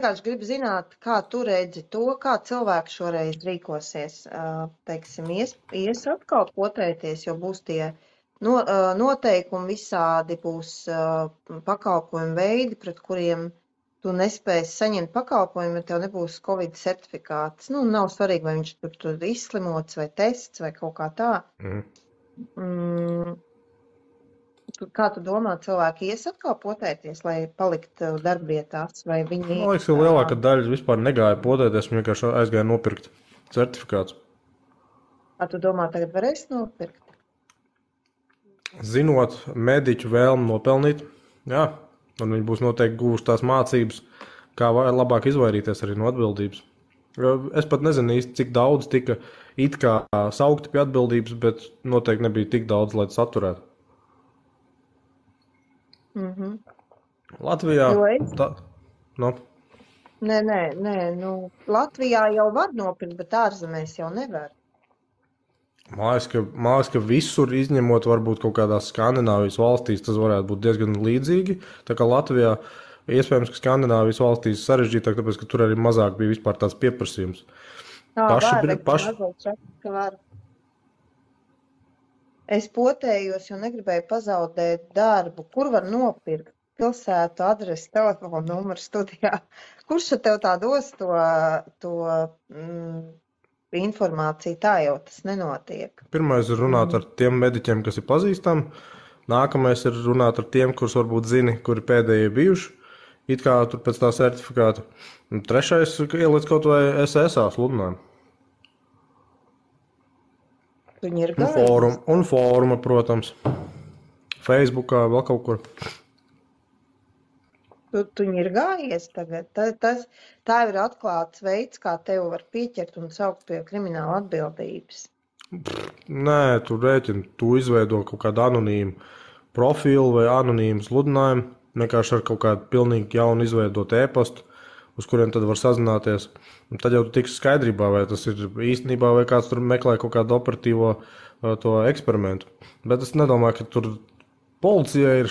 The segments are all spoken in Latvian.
vienkārši gribu zināt, kā tu redzi to, kā cilvēki šoreiz rīkosies. Teiksim, ies atkal potēties, jo būs tie noteikumi visādi, būs pakalpojumu veidi, pret kuriem tu nespēsi saņemt pakalpojumu, ja tev nebūs Covid certifikāts. Nu, nav svarīgi, vai viņš tur izslimots vai tests vai kaut kā tā. Kā tu domā, cilvēki ies atkal potēties, lai paliktu darbvietās, vai viņi... Man liekas, ka lielākā daļa vispār negāja potēties, viņi vienkārši aizgāja nopirkt certifikāts. Kā tu domā, tagad varēs nopirkt? Zinot mediķu vēlmu nopelnīt, jā, un viņi būs noteikti guvuši tās mācības, kā labāk izvairīties arī no atbildības. Es pat nezinu īsti, cik daudz tika it kā saukti pie atbildības, bet noteikti nebija tik daudz, lai tas atturētu. Latvijā... Nē, Latvijā jau var nopirkt, bet ārzemēs jau nevar. Man liekas, ka visur izņemot varbūt kaut kādās Skandināvijas valstīs tas varētu būt diezgan līdzīgi. Tā kā Latvijā iespējams, ka Skandināvijas valstīs sarežģītāk, tāpēc, ka tur arī mazāk bija vispār tāds pieprasījums. Es potējos, jo negribēju pazaudēt darbu. Kur var nopirkt? Pilsētu, adresi, telefonu numuru studijā. Kurš tev tā dos to informāciju? Tā jau tas nenotiek. Pirmais ir runāt ar tiem mediķiem, kas ir pazīstami. Nākamais ir runāt ar tiem, kurus varbūt zini, kuri pēdējie bijuši. It kā tur pēc tā certifikāta. Un trešais ir ieliec kaut vai SSA sludinājumu. Viņi ir gājuši. Un fóruma, protams. Facebookā, vēl kaut kur. Tu viņi ir gājies tagad. Tā ir atklāts veids, kā tevi var pieķert un saukt pie krimināla atbildības. Nē, tu rēķini, tu izveido kaut kādu anonīmu profilu vai anonīmu sludinājumu, vienkārši ar kaut kādu pilnīgi jaunu izveidot e-pastu, uz kuriem tad var sazināties. Un tad jau tu tiksi skaidrībā, vai tas ir īstenībā, vai kāds tur meklē kaut kādu operatīvo to eksperimentu. Bet es nedomāju, ka tur policija ir,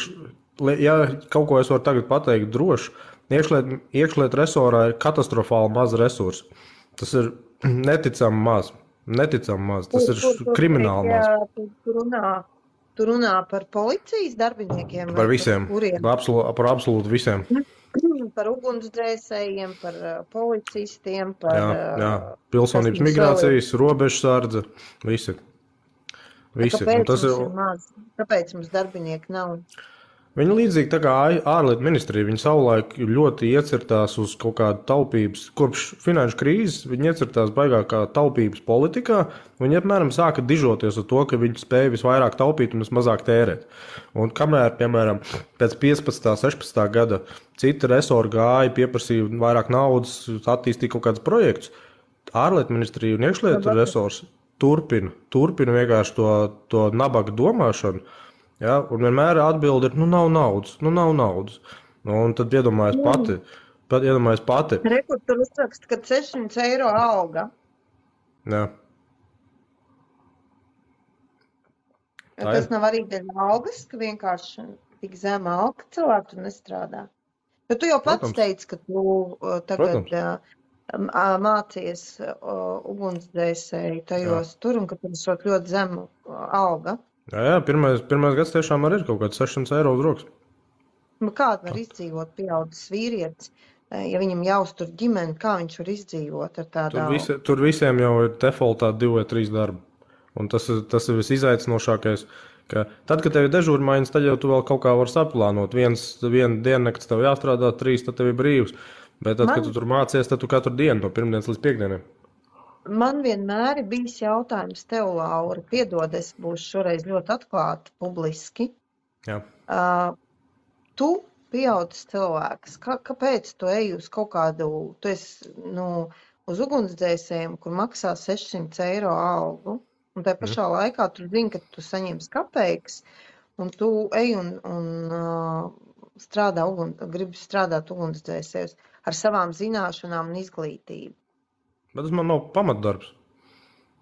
ja kaut ko es varu tagad pateikt droši, iekšliet resorā ir katastrofāli maz resursi. Tas ir neticami maz. Tas ir krimināli maz. Tu runā par policijas darbiniekiem? Par visiem. Par absolūti visiem. Par ugunsdzēsējiem, par policistiem, par... Jā. Pilsonības migrācijas, robežsardze, visi. Kāpēc mums darbinieki nav? Viņi līdzīgi tā kā ārlietu ministrija, viņi savulaik ļoti iecirtās uz kaut kādu taupības, kopš finanšu krīzes, viņi iecirtās baigākā taupības politikā, viņi apmēram sāka dižoties ar to, ka viņi spēja visvairāk taupīt un vismazāk tērēt. Un kamēr, piemēram, pēc 15. 16. gada citi resori gāja, pieprasīja vairāk naudas, attīstīja kaut kādus projektus, ārlietu ministrija un iekšlietu resors turpina vienkārši to nabaga domāšanu. Ja, un vienmēr atbildi ir, nav naudas. Un tad iedomājies pati. Rekur tur uzrakst, ka 600 eiro alga. Jā. Tas nav arī dēļ algas, ka vienkārši tik zema alga cilvēku tur nestrādā. Bet tu jau pats teici, ka tu tagad mācies ugunsdzēsēji tajos tur un ka tur esot ļoti zemu alga. Jā, pirmais gads tiešām arī ir kaut kāds 600 eiro uz rokas. Kāda var izdzīvot pieaudzis vīrietis, ja viņam jāuztur ģimeni, kā viņš var izdzīvot ar tādu algu? Tur visiem jau ir defaultā 2 vai 3 darbi. Un tas ir visizaicinošākais, ka tad, kad tev ir dežūrmaiņas, tad jau tu vēl kaut kā var saplānot. Vienu diennakts tev jāstrādā, 3, tad tev ir brīvs. Bet tad, kad tu tur mācies, tad tu katru dienu no pirmdienas līdz piekdienai. Man vienmēr ir bijis jautājums tev, Laura, piedod, es būšu šoreiz ļoti atklāta publiski. Jā. Tu pieaudzis cilvēks, kāpēc tu ej uz kaut kādu, tu esi, uz ugunsdzēsējiem, kur maksā 600 eiro algu, un tajā pašā laikā tu zini, ka tu saņemsi kapeikas, un tu ej un gribi strādāt ugunsdzēsējos ar savām zināšanām un izglītību. Bet tas man nav pamatdarbs.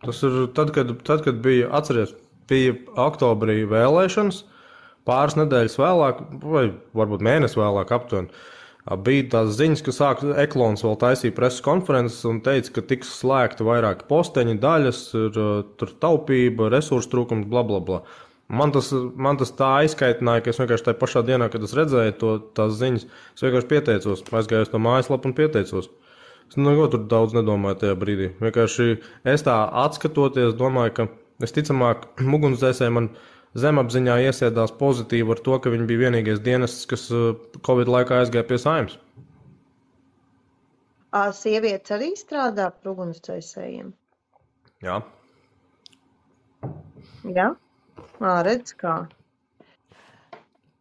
Tas ir tad, kad bija, atceries, bija oktobrī vēlēšanas, pāris nedēļas vēlāk, vai varbūt mēnesi vēlāk aptuveni, Bija tās ziņas, ka Eklons vēl taisīja preses konferences un teica, ka tiks slēgti vairāki posteņi, daļas, tur taupība, resursu trūkums, bla, bla, bla. Man tas tā aizkaitināja, ka es vienkārši tajā pašā dienā, kad es redzēju tās ziņas, es vienkārši pieteicos, aizgāju uz to mājaslapu un pieteicos. Es neko tur daudz nedomāju tajā brīdī. Vienkārši es tā atskatoties, domāju, ka visticamāk ugunsdzēsēji man zemapziņā iesēdās pozitīvi ar to, ka viņi bija vienīgais dienests, kas Covid laikā aizgāja pie Saeimas. Sievietes arī strādā par ugunsdzēsējiem? Jā. Jā? Redz kā.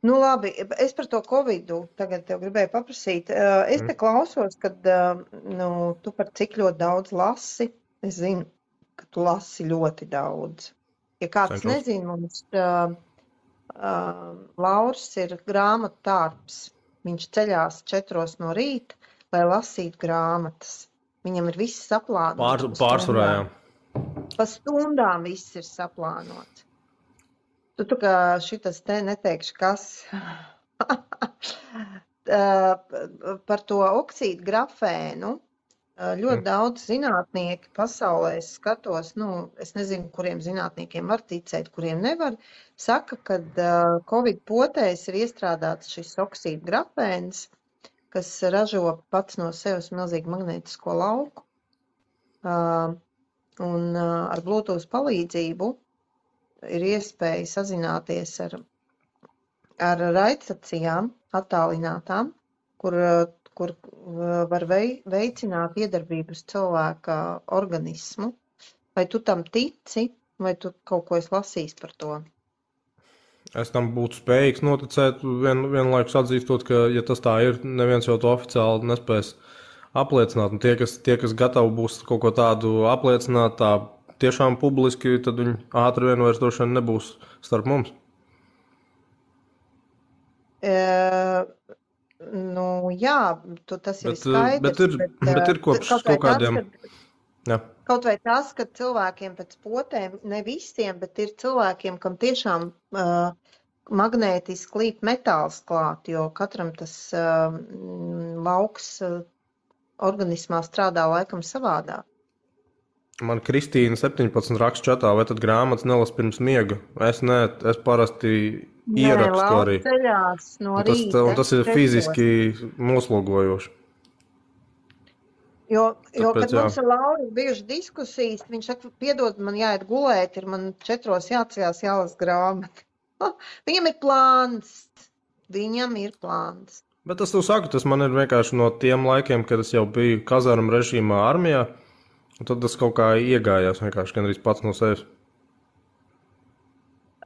Nu labi, es par to Covidu tagad tev gribēju paprasīt. Es te klausos, kad tu par cik ļoti daudz lasi. Es zinu, ka tu lasi ļoti daudz. Ja kāds nezina, mums Lauris ir grāmatu tārps. Viņš ceļās 4 no rīta, lai lasītu grāmatas. Viņam ir viss saplānots. Pārsvarā, jā. Pa stundām viss ir saplānots. Tu kā šitas te neteikšu, kas par to oksīdu grafēnu. Ļoti daudz zinātnieki pasaulē skatos, es nezinu, kuriem zinātniekiem var ticēt, kuriem nevar, saka, ka Covid potēs ir iestrādāts šis oksīdu grafēns, kas ražo pats no sevis milzīgu magnētisko lauku. Un ar Bluetooth palīdzību ir iespēja sazināties ar raidstacijām attālinātām, kur var veicināt iedarbību uz cilvēka organismu. Vai tu tam tici, vai tu kaut ko esi lasījis par to? Es tam būtu spējīgs noticēt, vienlaikus atzīstot, ka, ja tas tā ir, neviens jau to oficiāli nespēs apliecināt. Un tie, kas gatavi būs kaut ko tādu apliecināt, tā tiešām publiski, tad viņi ātri vien vairs droši vien nebūs starp mums. Jā, tas ir skaidrs. Bet ir kopš kaut kādiem... Kaut vai tas, ka cilvēkiem pēc potēm, ne visiem, bet ir cilvēkiem, kam tiešām magnētiski līp metāls klāt, jo katram tas lauks organismā strādā laikam savādāk. Man Kristīna 17 raksta čatā, vai tad grāmatas nelas pirms miega? Es parasti ierakstu arī. No rīta, un tas ir fiziski noslogojoši. Kad mums ar Lauru bijuši diskusijas, viņš saka, piedod, man jāiet gulēt, ir man 4 jāceļās jālas grāmata. Viņam ir plāns. Bet tas tu saki, tas man ir vienkārši no tiem laikiem, kad es jau biju kazarmu režīmā armijā, un tad tas kaut kā iegājās vienkārši gandrīz pats no sevis.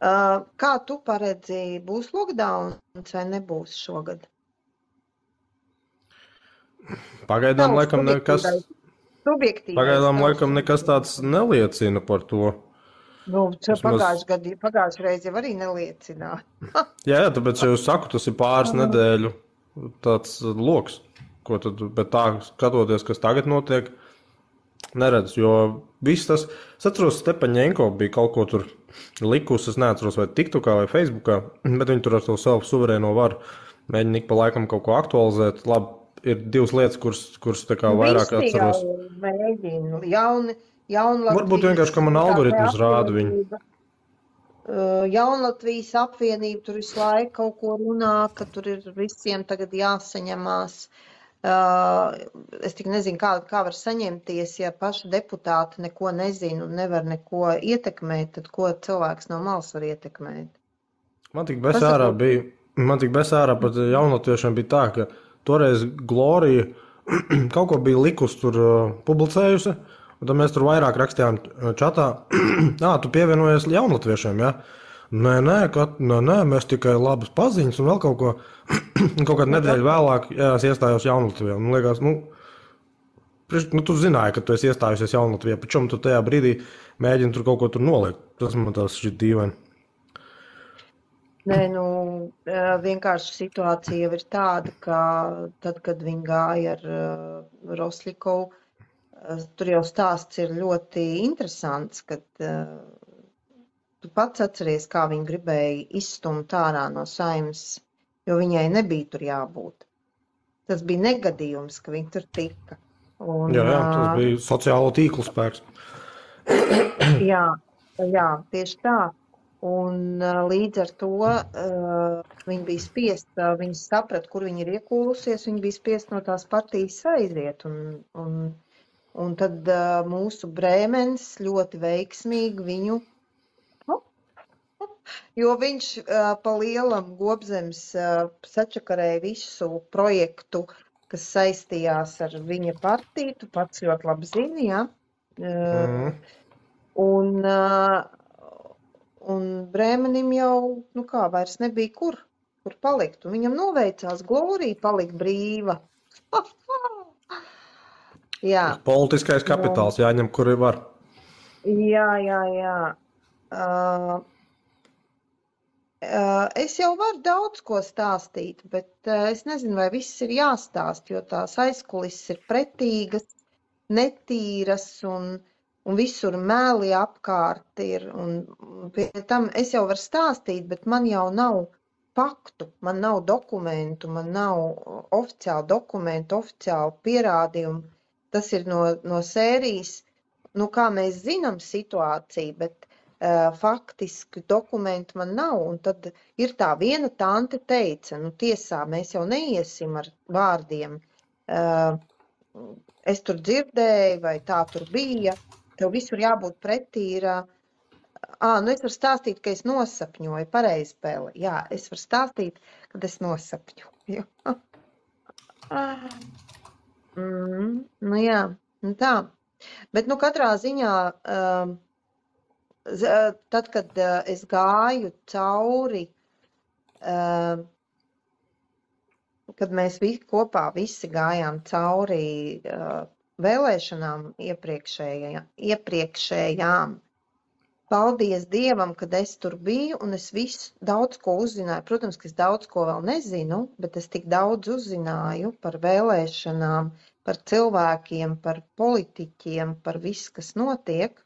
Kā tu paredzi, būs lockdowns vai nebūs šogad? Pagaidām laikam nekas tāds neliecina par to. Pagājušajā reizē jau arī neliecināja. jā, tāpēc jau saku, tas ir pāris nedēļu tāds loks, ko tad, bet tā skatoties, kas tagad notiek, neredz, jo viss tas, es atceros, Stepaņenko bija kaut ko tur likusi, es neatceros vai TikTokā vai Facebookā, bet viņi tur ar to savu suverēno varu mēģina ik pa laikam kaut ko aktualizēt. Labi, ir 2 lietas, kuras tā kā vairāk atceros. Varbūt vienkārši, ka man algoritmus rāda viņu. Jaunlatvijas apvienība tur visu laiku kaut ko runā, ka tur ir visiem tagad jāsaņemās. Es tik nezinu, kā var saņemties, ja paši deputāti neko nezina un nevar neko ietekmēt, tad ko cilvēks no malas var ietekmēt? Man tik besārā pat jaunlatviešiem bija tā, ka toreiz Glorija kaut ko bija likus tur publicējusi, un tad mēs tur vairāk rakstījām čatā, tu pievienojies jaunlatviešiem, ja? Nē, mēs tikai labas paziņas un vēl kaut ko, kaut kādu nedēļu vēlāk, jā, es iestājos Jaunlatvijā. Man liekas, tu zināji, ka tu esi iestājusies Jaunlatvijā, pačom tu tajā brīdī mēģini tur kaut ko tur noliekt. Tas man tās šķiet dīvaini. Nē, vienkārši situācija jau ir tāda, ka tad, kad viņi gāja ar Roslikovu, tur jau stāsts ir ļoti interesants, kad tu pats atceries, kā viņi gribēja izstumt ārā no Saeimas, jo viņai nebija tur jābūt. tas bija negadījums, ka viņi tur tika. Un, Jā, tas bija sociālo tīklu spēks. jā, tieši tā. Un līdz ar to viņi bija spiest, viņi saprata, kur viņi ir iekūlusies, viņi bija spiest no tās partijas aiziet. Un tad mūsu Brēmens ļoti veiksmīgi viņu, jo viņš pa lielam Gobzems sačakarēja visu projektu, kas saistījās ar viņa partiju, tu pats ļoti labi zini, jā. Un Brēmenim jau, vairs nebija kur palikt. Un viņam noveicās glorija palikt brīva. Jā. Politiskais kapitāls jāņem, kur var. Jā. Es jau varu daudz ko stāstīt, bet es nezinu, vai viss ir jāstāst, jo tās aizkulises ir pretīgas, netīras un visur mēli apkārt ir. Un pie tam es jau varu stāstīt, bet man jau nav faktu, man nav dokumentu, man nav oficiālu dokumentu, oficiālu pierādījumu. Tas ir no sērijas, kā mēs zinām situāciju, bet faktiski dokumentu man nav. Un tad ir tā viena tante teica, tiesā mēs jau neiesim ar vārdiem. Es tur dzirdēju, vai tā tur bija. Tev visur jābūt pretī ir, es varu stāstīt, ka es nosapņoju, pareizi spēle. Jā, es varu stāstīt, kad es nosapņoju. Jā, tā. Bet, katrā ziņā, tad, kad es gāju cauri, kad mēs kopā visi gājām cauri vēlēšanām iepriekšējām. Paldies Dievam, kad es tur biju un es daudz ko uzzināju. Protams, ka es daudz ko vēl nezinu, bet es tik daudz uzzināju par vēlēšanām, par cilvēkiem, par politiķiem, par visu, kas notiek,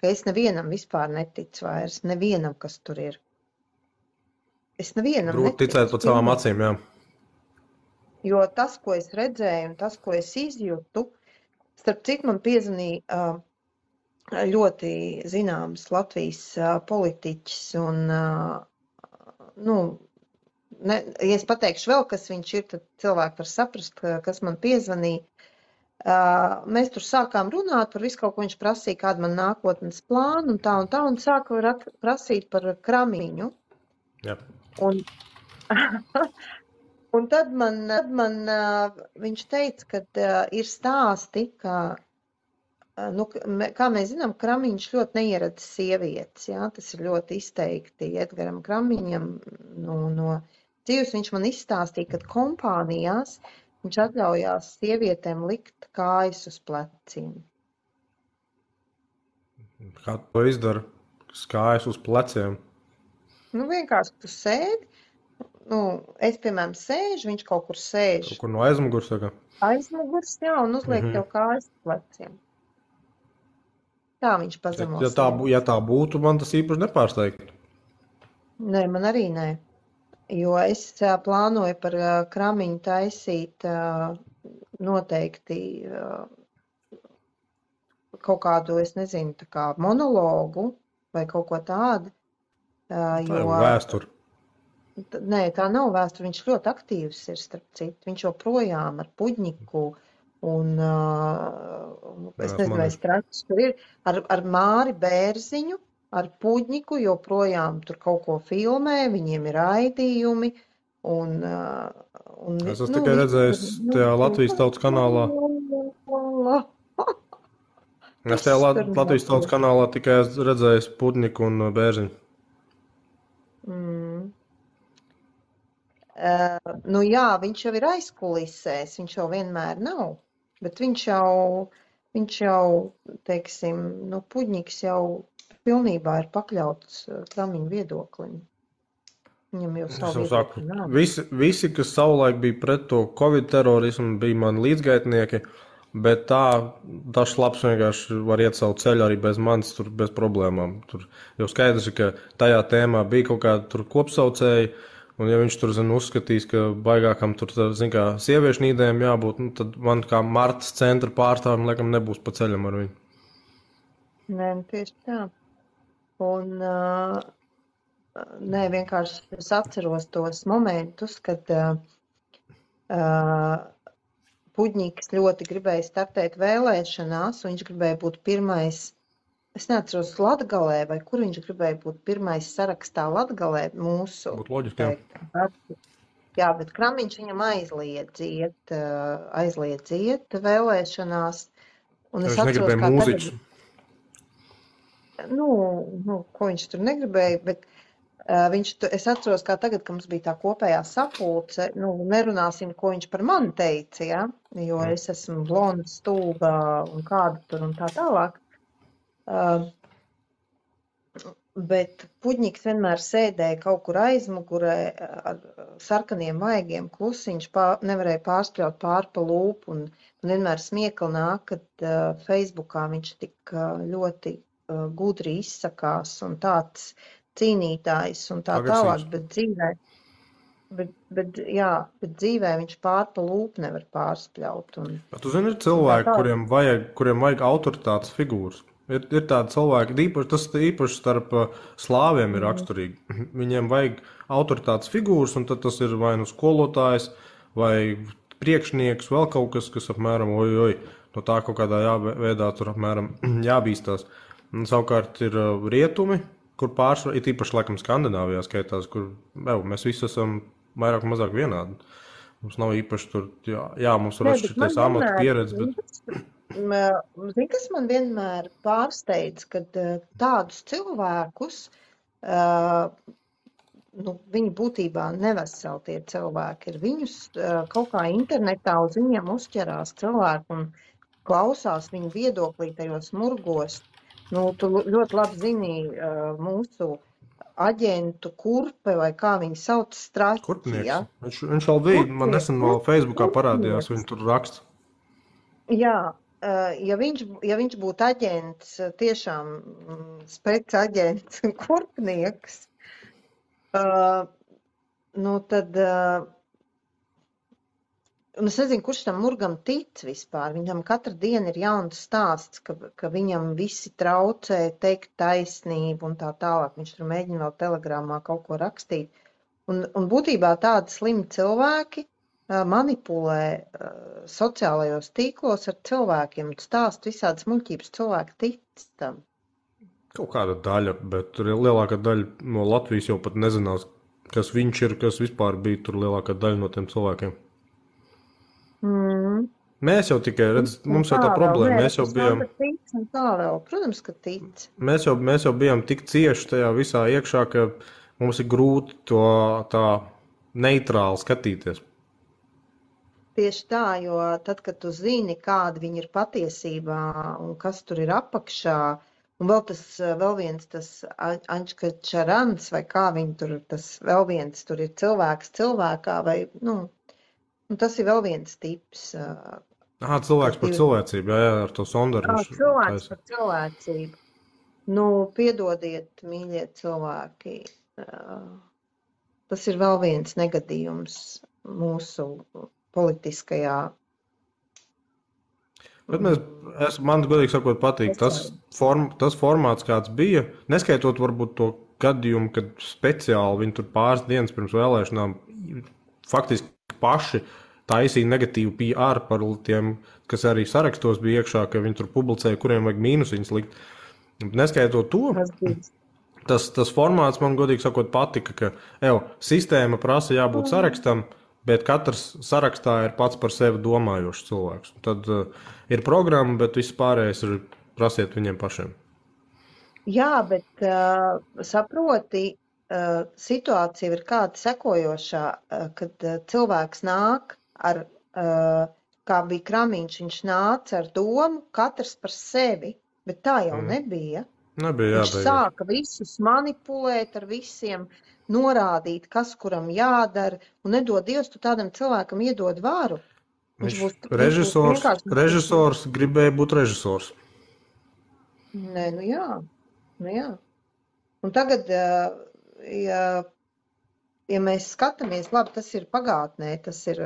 ka es nevienam vispār neticu vairs, nevienam, kas tur ir. Es nevienam neticu. Grūti ticēt pat savām acīm, jā. Jo tas, ko es redzēju un tas, ko es izjūtu, starp citu, man piezvanīja ļoti zināms Latvijas politiķis un, ja es pateikšu vēl, kas viņš ir, tad cilvēki var saprast, kas man piezvanīja. Mēs tur sākām runāt par visu kaut ko, viņš prasīja, kāda man nākotnes plāna un tā, un sāka prasīt par Kramiņu. Jā. Un tad man viņš teica, ka ir stāsti, ka, kā mēs zinām, Kramiņš ļoti neieredz sievietes, jā, tas ir ļoti izteikti Edgaram Kramiņam no dzīves. Viņš man izstāstīja, ka kompānijās viņš atļaujās sievietēm likt kājas uz pleciem. Kā to izdara? Kājas uz pleciem? Vienkārši tu sēdi. Es, piemēram, sēžu, viņš kaut kur sēž. Kaut kur no aizmugurs, saka? Aizmugurs, jā, un uzliek tev kājas pleciem. Tā viņš pazemos. Ja tā būtu, man tas īpaši nepārsteigtu. Nē, man arī nē. Jo es plānoju par Kramiņu taisīt noteikti kaut kādu, es nezinu, tā kā monologu vai kaut ko tādu. Tā ir vēsture. Nē, tā nav vēsture. Viņš ļoti aktīvs ir, starp citu. Viņš joprojām ar Puģņiku un, es nezinu, vai Stračs tur ir, ar Māri Bērziņu, ar Puģņiku joprojām tur kaut ko filmē, viņiem ir raidījumi. Es esmu tikai redzējis tajā Latvijas Tautas kanālā. Es tajā Latvijas Tautas kanālā tikai redzējis Puģņiku un Bērziņu. Jā, viņš jau ir aizkulisēs, viņš jau vienmēr nav, bet viņš jau, teiksim, Puģņiks jau pilnībā ir pakļauts Kramiņu viedoklim. Viņam jau savu viedokli nav. Visi, kas savulaik bija pret to Covid terorismu, bija mani līdzgaitnieki, bet tas labs vienkārši var iet savu ceļu arī bez manis, tur bez problēmām. Tur jau skaidrs, ka tajā tēmā bija kaut kāda tur kopsaucēji, Un ja viņš tur, uzskatīs, ka baigākam tur, kā, sieviešu nīdēm jābūt, tad man kā Martas centra pārstāvim, laikam, nebūs pa ceļam ar viņu. Nē, tieši tā. Un, nē, vienkārši es atceros tos momentus, kad Puģņiks ļoti gribēja startēt vēlēšanās, un viņš gribēja būt pirmais. Es neatceros Latgalē, vai kur viņš gribēja būt pirmais sarakstā Latgalē mūsu. Būtu loģiski, jā. Jā, bet Kramiņš viņam aizliedz iet vēlēšanās. Un es atceros, kā mūziķis. Ko viņš tur negribēja, bet es atceros, kā tagad, ka mums bija tā kopējā sapulce, nerunāsim, ko viņš par mani teica, ja? Jo es esmu blonda, stulba un kāda tur un tā tālāk. Bet Puģņiks vienmēr sēdēja kaut kur aizmugurē ar sarkaniem vaigiem, klusiņš nevarēja pārspļaut pāri pa lūpu un vienmēr smiekli nāk, kad Facebookā viņš tik ļoti gudri izsakās un tāds cīnītājs un tā tālāk, bet dzīvē viņš pāri pa lūpu nevar pārspļaut. Tu zini, ir cilvēki, kuriem vajag autoritātes figūras. Ir tādi cilvēki, tas īpaši starp slāviem ir raksturīgi. Viņiem vajag autoritātes figūras, un tad tas ir vai nu skolotājs, vai priekšnieks, vēl kaut kas, kas apmēram, no tā kaut kādā veidā tur apmēram jābīstās. Un savukārt ir rietumi, kur pārsvarā, ir īpaši laikam Skandināvijā skaitās, kur mēs visi esam vairāk un mazāk vienādi. Mums nav īpaši tur, mums var atšķirties amatu pieredze, bet... Zini, kas man vienmēr pārsteidz, kad tādus cilvēkus, viņi būtībā neveseli tie cilvēki ir. Viņus kaut kā internetā uz viņiem uzķerās cilvēki un klausās viņu viedoklī tajos murgos. Tu ļoti labi zini mūsu aģentu Kurpe, vai kā viņi sauc, Straķi. Kurpnieks. Ja? Viņš vēl bija, man nesen vēl Facebookā parādījās, viņi tur raksta. Jā. Ja viņš būtu aģents, tiešām spec-aģents un kurpnieks, tad, es nezinu, kurš tam murgam tic vispār. Viņam katru dienu ir jauns stāsts, ka viņam visi traucē teikt taisnību un tā tālāk. Viņš tur mēģina vēl telegramā kaut ko rakstīt. Un būtībā tādi slimi cilvēki manipulē sociālajos tīklos ar cilvēkiem, stāst visādas muļķības, cilvēki tic tam. Kaut kāda daļa, bet lielākā daļa no Latvijas jau pat nezinās, kas viņš ir, kas vispār bija tur lielākā daļa no tiem cilvēkiem. Mēs jau tikai mums jau tā problēma, mēs jau bijām... Protams, ka tic. Mēs jau bijām tik cieši tajā visā iekšā, ka mums ir grūti to tā neitrāli skatīties. Tieši tā, jo tad, kad tu zini, kāda viņi ir patiesībā un kas tur ir apakšā, un vēl viens tas Ančka Čarans, vai kā viņi tur, tas vēl viens tur ir cilvēks cilvēkā, vai, tas ir vēl viens tips. Cilvēks par cilvēcību, jā, ar to sondaru. Cilvēks par cilvēcību. Piedodiet, mīļie cilvēki, tas ir vēl viens negadījums mūsu politiskajā. Bet man godīgi sakot patīk tas formāts, kāds bija, neskaitot varbūt to gadījumu, kad speciāli viņi tur pāris dienas pirms vēlēšanām faktiski paši taisīja negatīvu PR par tiem, kas arī sarakstos bija iekšā, ka viņi tur publicēja, kuriem vajag mīnusiņas likt. Neskaitot to, tas formāts man godīgi sakot patika, ka sistēma prasa jābūt sarakstam, bet katrs sarakstā ir pats par sevi domājošs cilvēks. Tad ir programma, bet viss pārējais ir prasiet viņiem pašiem. Jā, bet saproti, situācija ir kāda sekojošā, kad cilvēks nāk ar, kā bija Kramiņš, viņš nāca ar domu katrs par sevi, bet tā jau nebija. Viņš sāka visus manipulēt ar visiem, norādīt, kas kuram jādara, un nedod Dievs, tu tādam cilvēkam iedod varu. Režisors gribēja būt režisors. Nē, jā. Un tagad, ja ja mēs skatāmies, labi, tas ir pagātnē, tas ir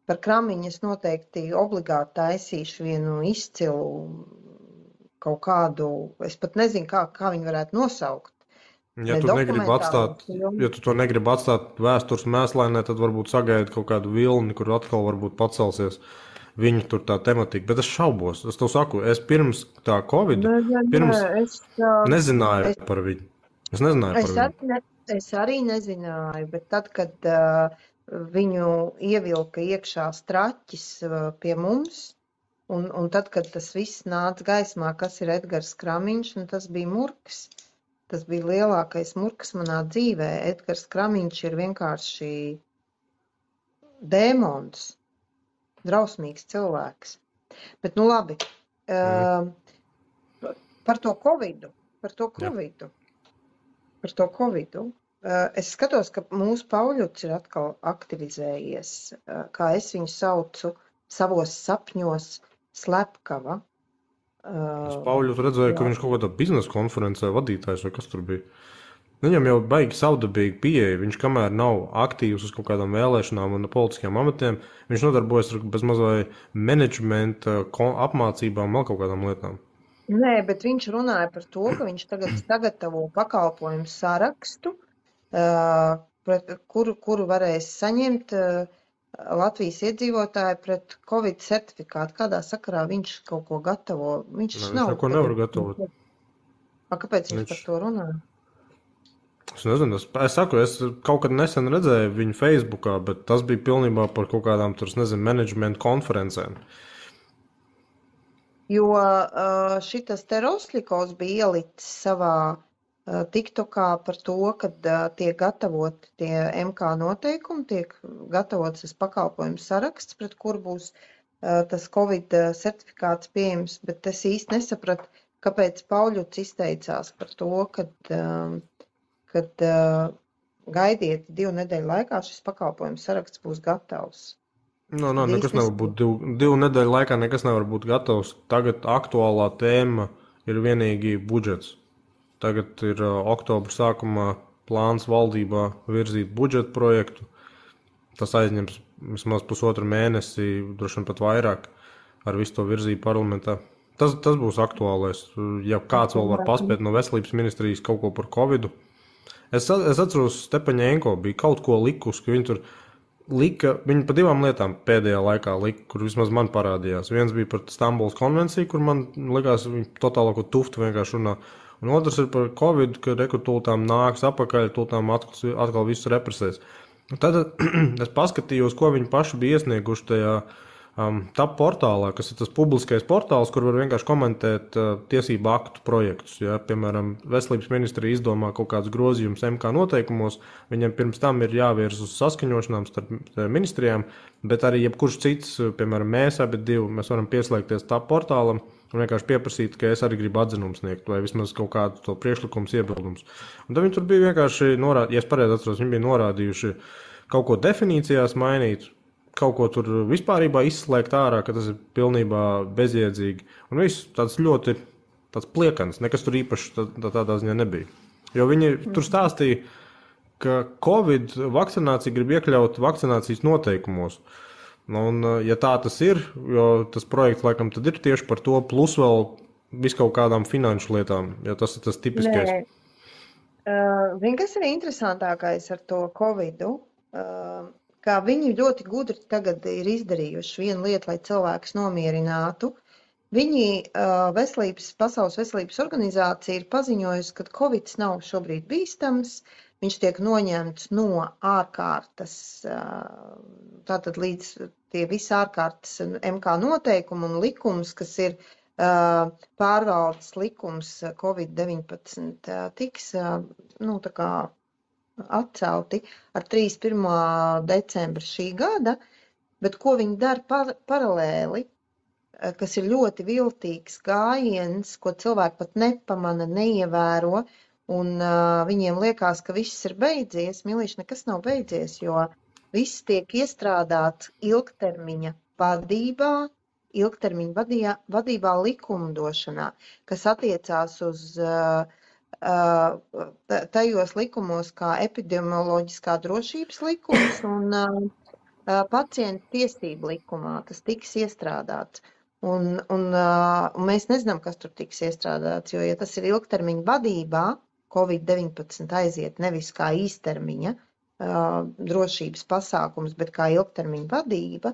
par Kramiņas noteikti obligāti taisīšu vienu izcilu kaut kādu, es pat nezinu, kā viņi varētu nosaukt. Ja Ne tu negribi dokumentālo atstāt, filmu. ja tu to negribi atstāt vēstures mēslainē, tad varbūt sagaidi kaut kādu vilni, kur atkal varbūt pacelsies viņu tur tā tematika. Bet es šaubos, es tev saku, es pirms tā Covid, Nē, pirms nezināju par viņu. Es nezināju par viņu. es arī nezināju, bet tad, kad viņu ievilka iekšā straķis pie mums, un tad, kad tas viss nāca gaismā, kas ir Edgars Kramiņš, un tas bija murgs. Tas bija lielākais murgs manā dzīvē. Edgars Kramiņš ir vienkārši dēmons, drausmīgs cilvēks. Bet, nu labi, par to Covidu. Es skatos, ka mūsu Pauļuts ir atkal aktivizējies, kā es viņu saucu, savos sapņos slepkava. Es Pauļus redzēju, ka viņš kaut kādā biznesa konferencē vadītājs vai kas tur bija. Viņam jau baigi savdabīgi pieeja. Viņš kamēr nav aktīvs uz kaut kādām vēlēšanām un politiskiem amatiem, viņš nodarbojas ar bezmazai menedžmenta apmācībām, vēl kaut kādām lietām. Nē, bet viņš runāja par to, ka viņš tagad sagatavo pakalpojumu sarakstu, kuru varēs saņemt Latvijas iedzīvotāji pret Covid certifikātu. Kādā sakarā viņš kaut ko gatavo? Viņš neko nevar gatavot. Kāpēc viņš par to runā? Es nezinu, es saku, es kaut kad nesen redzēju viņu Facebookā, bet tas bija pilnībā par kaut kādām, tur, nezinu, menedžmentu konferencēm. Jo šitas te Rosļikovs bija ielicis savā TikTokā par to, kad tiek gatavot tie MK noteikumi, tiek gatavots tas pakalpojumu saraksts, pret kuru būs tas Covid certifikāts pieejams, bet es īsti nesapratu, kāpēc Pauļuts izteicās par to, kad gaidiet 2 nedēļu laikā šis pakalpojumu saraksts būs gatavs. Nekas nevar būt 2 nedēļu laikā, nekas nevar būt gatavs. Tagad aktuālā tēma ir vienīgi budžets. Tagad ir oktobra sākumā plāns valdībā virzīt budžeta projektu. Tas aizņems vismaz 1,5 mēnesi, droši vien pat vairāk, ar visu to virzību parlamentā. Tas būs aktuālais. Ja kāds vēl var paspēt no veselības ministrijas kaut ko par Covidu. Es atceros, Stepaņēnko bija kaut ko likusi, ka viņi tur viņi pa 2 lietām pēdējā laikā lika, kur vismaz man parādījās. Viens bija par Stambulas konvenciju, kur man likās, viņi totālāko tuftu vienkārši runā. Un otrs ir par Covid, ka rekrutūtām nāks apakaļ, tūltām atkal visu represēs. Tad es paskatījos, ko viņi paši bija iesnieguši tajā TAP portālā, kas ir tas publiskais portāls, kur var vienkārši komentēt tiesību aktu projektus. Ja? Piemēram, veselības ministrija izdomā kaut kādus grozījumus MK noteikumos, viņiem pirms tam ir jāvirs uz saskaņošanām starp ministrijām, bet arī jebkurš cits, piemēram, mēs varam pieslēgties TAP portālam un vienkārši pieprasīt, ka es arī gribu atzinumu sniegt, vai vismaz kaut kādu to priekšlikumus iebildumus. Un tad viņi tur bija vienkārši norādījuši, ja es pareizi atceros, viņi bija norādījuši kaut ko definīcijās mainīt, kaut ko tur vispārībā izslēgt ārā, ka tas ir pilnībā bezjēdzīgi. Un viss tāds ļoti pliekans, nekas tur īpaši tādā ziņā nebija. Jo viņi tur stāstīja, ka Covid vakcinācija grib iekļaut vakcinācijas noteikumos. Un, ja tā tas ir, jo tas projekts laikam tad ir tieši par to, plus vēl viskaut kādām finanšu lietām, jo tas ir tas tipiskais. Zini, kas ir interesantākais ar to Covidu? Kā viņi ļoti gudri tagad ir izdarījuši vienu lietu, lai cilvēkus nomierinātu. Viņi, Pasaules veselības organizācija, ir paziņojusi, ka Covids nav šobrīd bīstams, viņš tiek noņemts no ārkārtas, tātad līdz tie visi ārkārtas MK noteikumi un likums, kas ir pārvaldes likums Covid-19, tiks, tā kā atcelti ar 31. decembra šī gada, bet ko viņi dara paralēli, kas ir ļoti viltīgs gājiens, ko cilvēki pat nepamana, neievēro, un viņiem liekas, ka viss ir beidzies. Milīši, nekas nav beidzies, jo viss tiek iestrādāts ilgtermiņa vadībā likumdošanā, kas attiecās uz tajos likumos kā epidemioloģiskā drošības likums un pacientu tiesību likumā. Tas tiks iestrādāts. Un mēs nezinām, kas tur tiks iestrādāts, jo, ja tas ir ilgtermiņa vadībā, Covid-19 aiziet nevis kā īstermiņa drošības pasākums, bet kā ilgtermiņa vadība,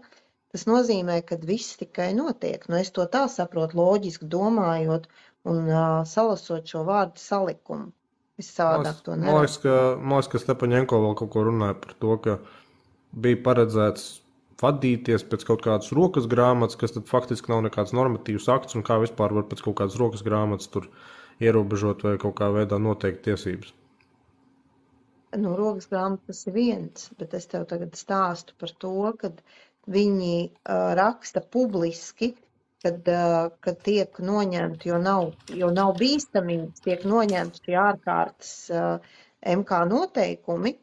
tas nozīmē, ka viss tikai notiek. Nu, es to tā saprotu, loģiski domājot un salasot šo vārdu salikumu. Es savādāk to neredzu. Man liekas, ka Stepaņenko vēl kaut ko runāja par to, ka bija paredzēts vadīties pēc kaut kādas rokas grāmatas, kas tad faktiski nav nekāds normatīvs akts, un kā vispār var pēc kaut kādas rokas grāmatas tur ierobežot vai kaut kā veidā noteikt tiesības. Nu, rokas grāmatas ir viens, bet es tev tagad stāstu par to, kad viņi raksta publiski, kad tiek noņemti, jo nav bīstamības, tiek noņemti šie ārkārtas MK noteikumi,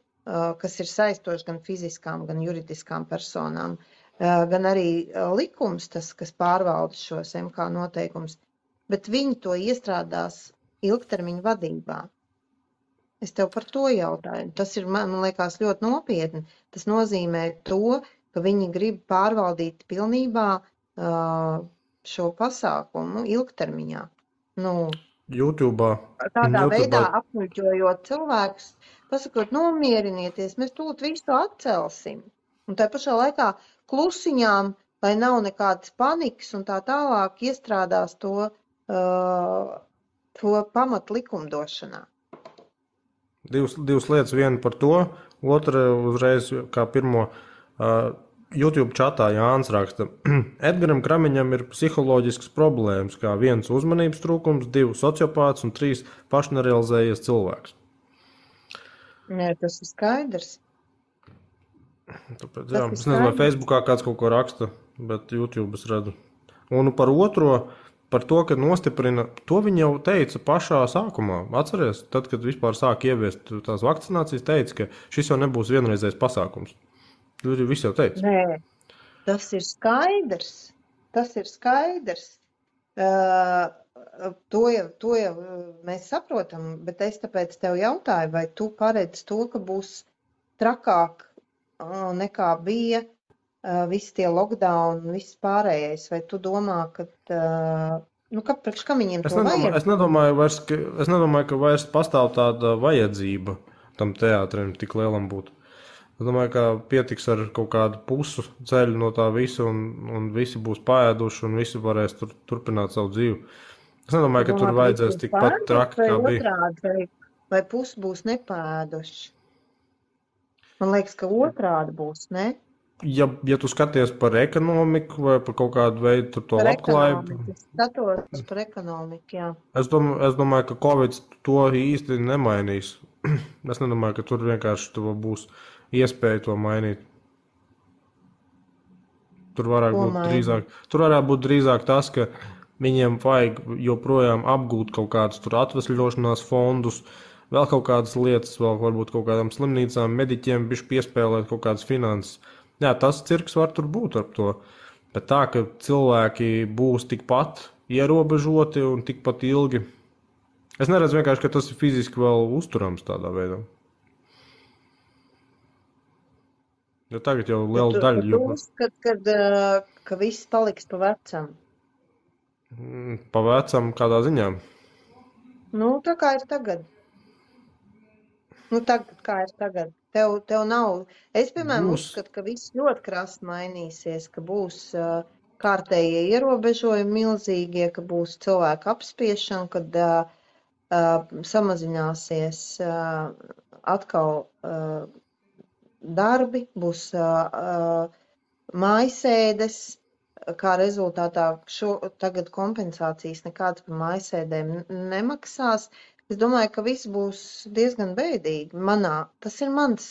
kas ir saistoši gan fiziskām, gan juridiskām personām, gan arī likums, tas, kas pārvalda šos MK noteikumus, bet viņi to iestrādās ilgtermiņa vadībā. Es tev par to jautāju. Tas ir, man liekas, ļoti nopietni. Tas nozīmē to, ka viņi grib pārvaldīt pilnībā šo pasākumu ilgtermiņā. Nu, YouTube'ā. Tādā veidā apmuļķojot cilvēkus, pasakot, nomierinieties, mēs tūlīt visu atcelsim. Un tā pašā laikā klusiņām, lai nav nekādas panikas un tā tālāk, iestrādās to pamat likumdošanā. Divas lietas, viena par to, otra uzreiz kā pirmo YouTube čatā Jānis raksta. Edgaram Kramiņam ir psiholoģisks problēmas, kā 1 uzmanības trūkums, 2 sociopāts un 3 pašnerealizējies cilvēks. Nē, tas ir skaidrs. Tāpēc, jā, es nezinu, vai Facebookā kāds kaut ko raksta, bet YouTube es redzu. Un par otro, par to, ka nostiprina, to viņi jau teica pašā sākumā. Atceries, tad, kad vispār sāk ieviest tās vakcinācijas, teica, ka šis jau nebūs vienreizējs pasākums. Viss jau teica. Nē, tas ir skaidrs. Tas ir skaidrs. To jau mēs saprotam, bet es tāpēc tev jautāju, vai tu paredz to, ka būs trakāk nekā bija visi tie lockdown un viss pārējais, vai tu domā, ka, priekš kam viņiem to vajag? Es nedomāju, ka vairs pastāv tāda vajadzība tam teātrim tik lielam būt. Es domāju, ka pietiks ar kaut kādu pusu ceļu no tā visa un visi būs paēduši un visi varēs turpināt savu dzīvi. Es nedomāju, ka tur vajadzēs tikpat traki, kā bija. Vai pusi būs nepēduši? Man liekas, ka otrādi būs, ne? Ja tu skaties par ekonomiku vai par kaut kādu veidu to labklājību. Es skatos par ekonomiku, jā. Es domāju, ka Covid to īsti nemainīs. Es nedomāju, ka tur vienkārši būs iespēja to mainīt. Tur varētu būt drīzāk tas, ka viņiem vajag joprojām apgūt kaut kādus tur atvesļošanās fondus, vēl kaut kādas lietas, vēl varbūt kaut kādām slimnīcām, mediķiem bišķi piespēlēt kaut kādas finanses. Jā, tas cirks var tur būt ar to, bet tā, ka cilvēki būs tikpat ierobežoti un tikpat ilgi. Es neredzu vienkārši, ka tas ir fiziski vēl uzturams tādā veidā. Jo tagad jau liela daļa. Tu uzskat, ka viss paliks pa vecam? Pa vecam kādā ziņā? Nu, tā kā ir tagad. Tagad kā ir tagad. Tev nav. Es, piemēram, uzskatu, ka viss ļoti krasti mainīsies, ka būs kārtējie ierobežojumi milzīgie, ka būs cilvēku apspiešana, kad samazināsies atkal darbi, būs mājasēdes, kā rezultātā tagad kompensācijas nekādas par mājasēdēm nemaksās. Es domāju, ka viss būs diezgan bēdīgi. Tas ir mans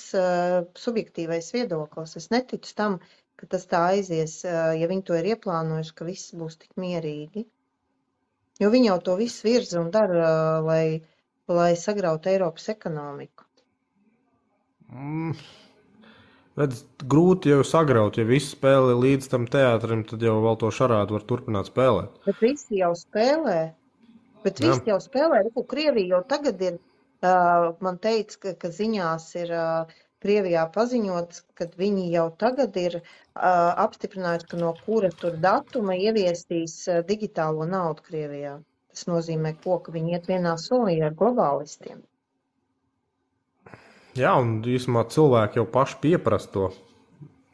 subjektīvais viedoklis. Es neticu tam, ka tas tā aizies, ja viņi to ir ieplānojuši, ka viss būs tik mierīgi. Jo viņi jau to visu virza un dara, lai sagrautu Eiropas ekonomiku. Grūti jau sagraut, ja visi spēlē līdz tam teātrim, tad jau vēl to šarādu var turpināt spēlēt. Bet visi jau spēlē. Bet Jā. visi jau spēlē, Krievija jau tagad ir, man teica, ka ziņās ir Krievijā paziņots, ka viņi jau tagad ir apstiprinājuši, ka no kura tur datuma ieviesīs digitālo naudu Krievijā. Tas nozīmē, ka viņi iet vienā solī ar globālistiem. Jā, un īsumā cilvēki jau paši pieprasa to,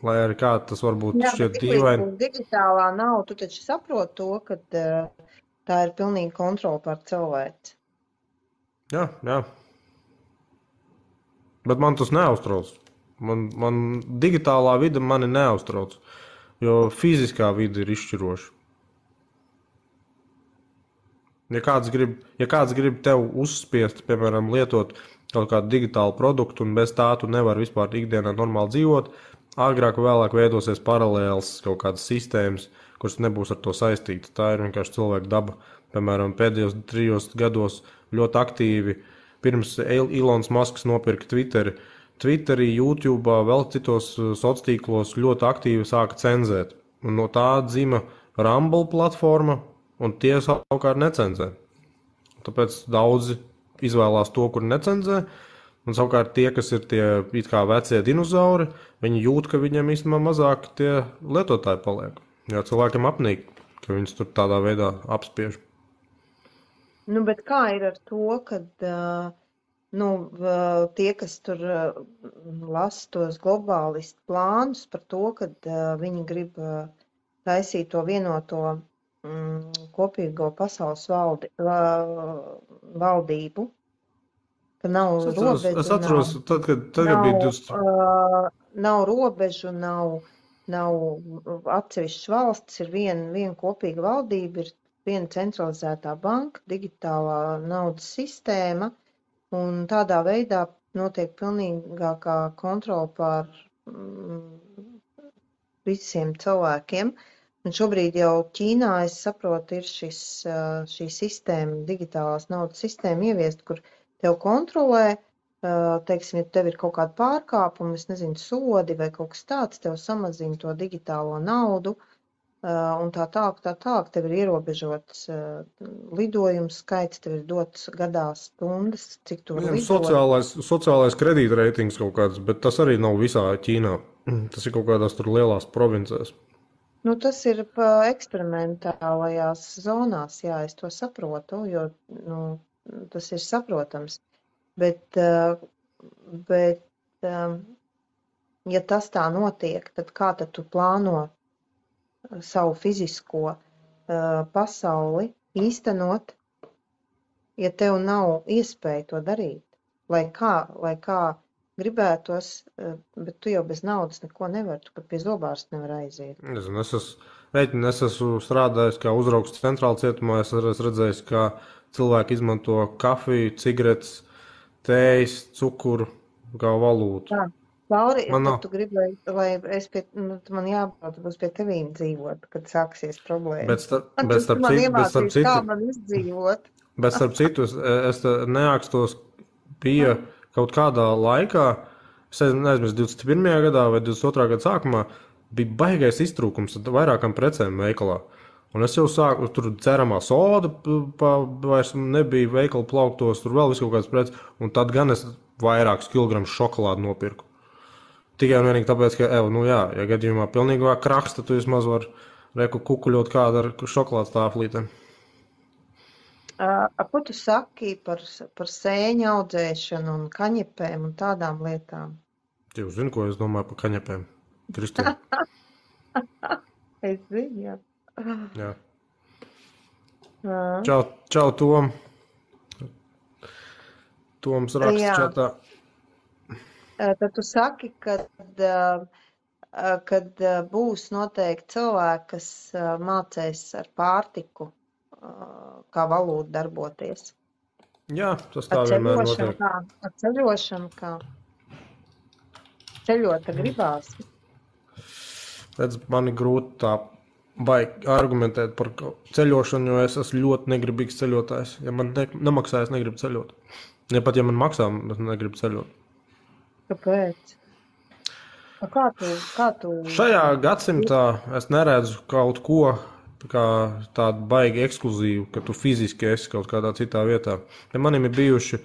lai arī kā tas varbūt šķiet dīvaini. Digitālā nauda, tu taču saproti to, ka tā ir pilnīga kontrola pār cilvēci. Jā. Bet man tas neuztrauc. Man digitālā vide mani neuztrauc, jo fiziskā vide ir izšķiroša. Ja kāds grib tev uzspiest, piemēram, lietot kaut kādu digitālu produktu, un bez tā tu nevari vispār ikdienā normāli dzīvot, agrāk vai vēlāk veidosies paralēls kaut kādas sistēmas, kuras nebūs ar to saistītas. Tā ir vienkārši cilvēka daba. Piemēram, pēdējos 3 gados ļoti aktīvi, pirms Elons Musks nopirka Twitterī, YouTube, vēl citos sociālos tīklos ļoti aktīvi sāka cenzēt. Un no tā dzima Rumble platforma, un tie savukārt necenzē. Tāpēc daudzi izvēlās to, kur necenzē, un savukārt tie, kas ir tie it kā vecie dinozauri, viņi jūt, ka viņiem īstenībā mazāk tie lietotāji paliek. Jo cilvēkiem apnīk, ka viņus tur tādā veidā apspiež. Nu, bet kā ir ar to, kad tie, kas tur lasa tos globālistu plānus par to, kad viņi grib taisīt to vienoto kopīgo pasaules valdību, ka nav robežu. Es atceros, tad, kad bija 20. Nav robežu, nav atsevišķas valstis, ir viena kopīga valdība, ir viena centralizētā banka, digitālā naudas sistēma, un tādā veidā notiek pilnīgākā kontrola pār visiem cilvēkiem. Un šobrīd jau Ķīnā, es saprotu, ir šī sistēma, digitālās naudas sistēma ieviest, kur tev kontrolē, teiksim, ja tev ir kaut kāda pārkāpuma, es nezinu, sodi vai kaut kas tāds, tev samazina to digitālo naudu, un tā tālāk, tev ir ierobežots lidojums skaits, tev ir dots gadā stundas, cik tu vari lidot. Sociālais kredītreitings kaut kāds, bet tas arī nav visā Ķīnā. Tas ir kaut kādās tur lielās provincēs. Nu, tas ir eksperimentālajās zonās, jā, es to saprotu, jo tas ir saprotams. Bet ja tas tā notiek, tad kā tad tu plāno savu fizisko pasauli īstenot, ja tev nav iespēja to darīt? Lai kā gribētos, bet tu jau bez naudas neko nevari, tu pat pie zobārsta nevar aiziet. Es esmu strādājis kā uzraugs centrāla cietumā, es esmu redzējis, kā cilvēki izmanto kafiju, cigaretes, tējas, cukuru kā valūtu. Tā, Lauri, tad tu gribi, lai es man jābrauc, būs pie tevīm dzīvot, kad sāksies problēmas. Bet starp citu, kā man izdzīvot. Bet starp citu, es neākstos pie kaut kādā laikā, es neaizmirsu 21. gadā vai 22. gada sākumā, bija baigais iztrūkums ar vairākām precēm veikalā. Un es jau sāku, tur ceramā soda vairs nebija veikala plauktos, tur vēl visu kaut kādas preces, un tad gan es vairākus kilogramus šokolādu nopirku. Tikai un vienīgi tāpēc, ka, ja gadījumā pilnīgā kraks, tad tu vismaz var kukuļot kādu ar šokolādes tāflītēm. Ko tu saki par sēņu audzēšanu un kaņepēm un tādām lietām? Jūs zini, ko es domāju par kaņepēm, Kristīna? Es zinu, jā. Jā. Čau, Tom. Toms raksta čatā. Tad tu saki, kad būs noteikti cilvēki, kas mācēs ar pārtiku, kā valūtu darboties. Jā, tas tā vienmēr notiek. Ar ceļošanu kā? Ceļot gribās. Redz, man ir grūti tā baigi argumentēt par ceļošanu, jo es esmu ļoti negribīgs ceļotājs. Ja man nemaksā, es negribu ceļot. Ja pat ja man maksā, es negribu ceļot. Kāpēc? Kā tu? Šajā gadsimtā es neredzu kaut ko kā tādu baigi ekskluzīvu, ka tu fiziski esi kaut kādā citā vietā. Ja manim ir bijuši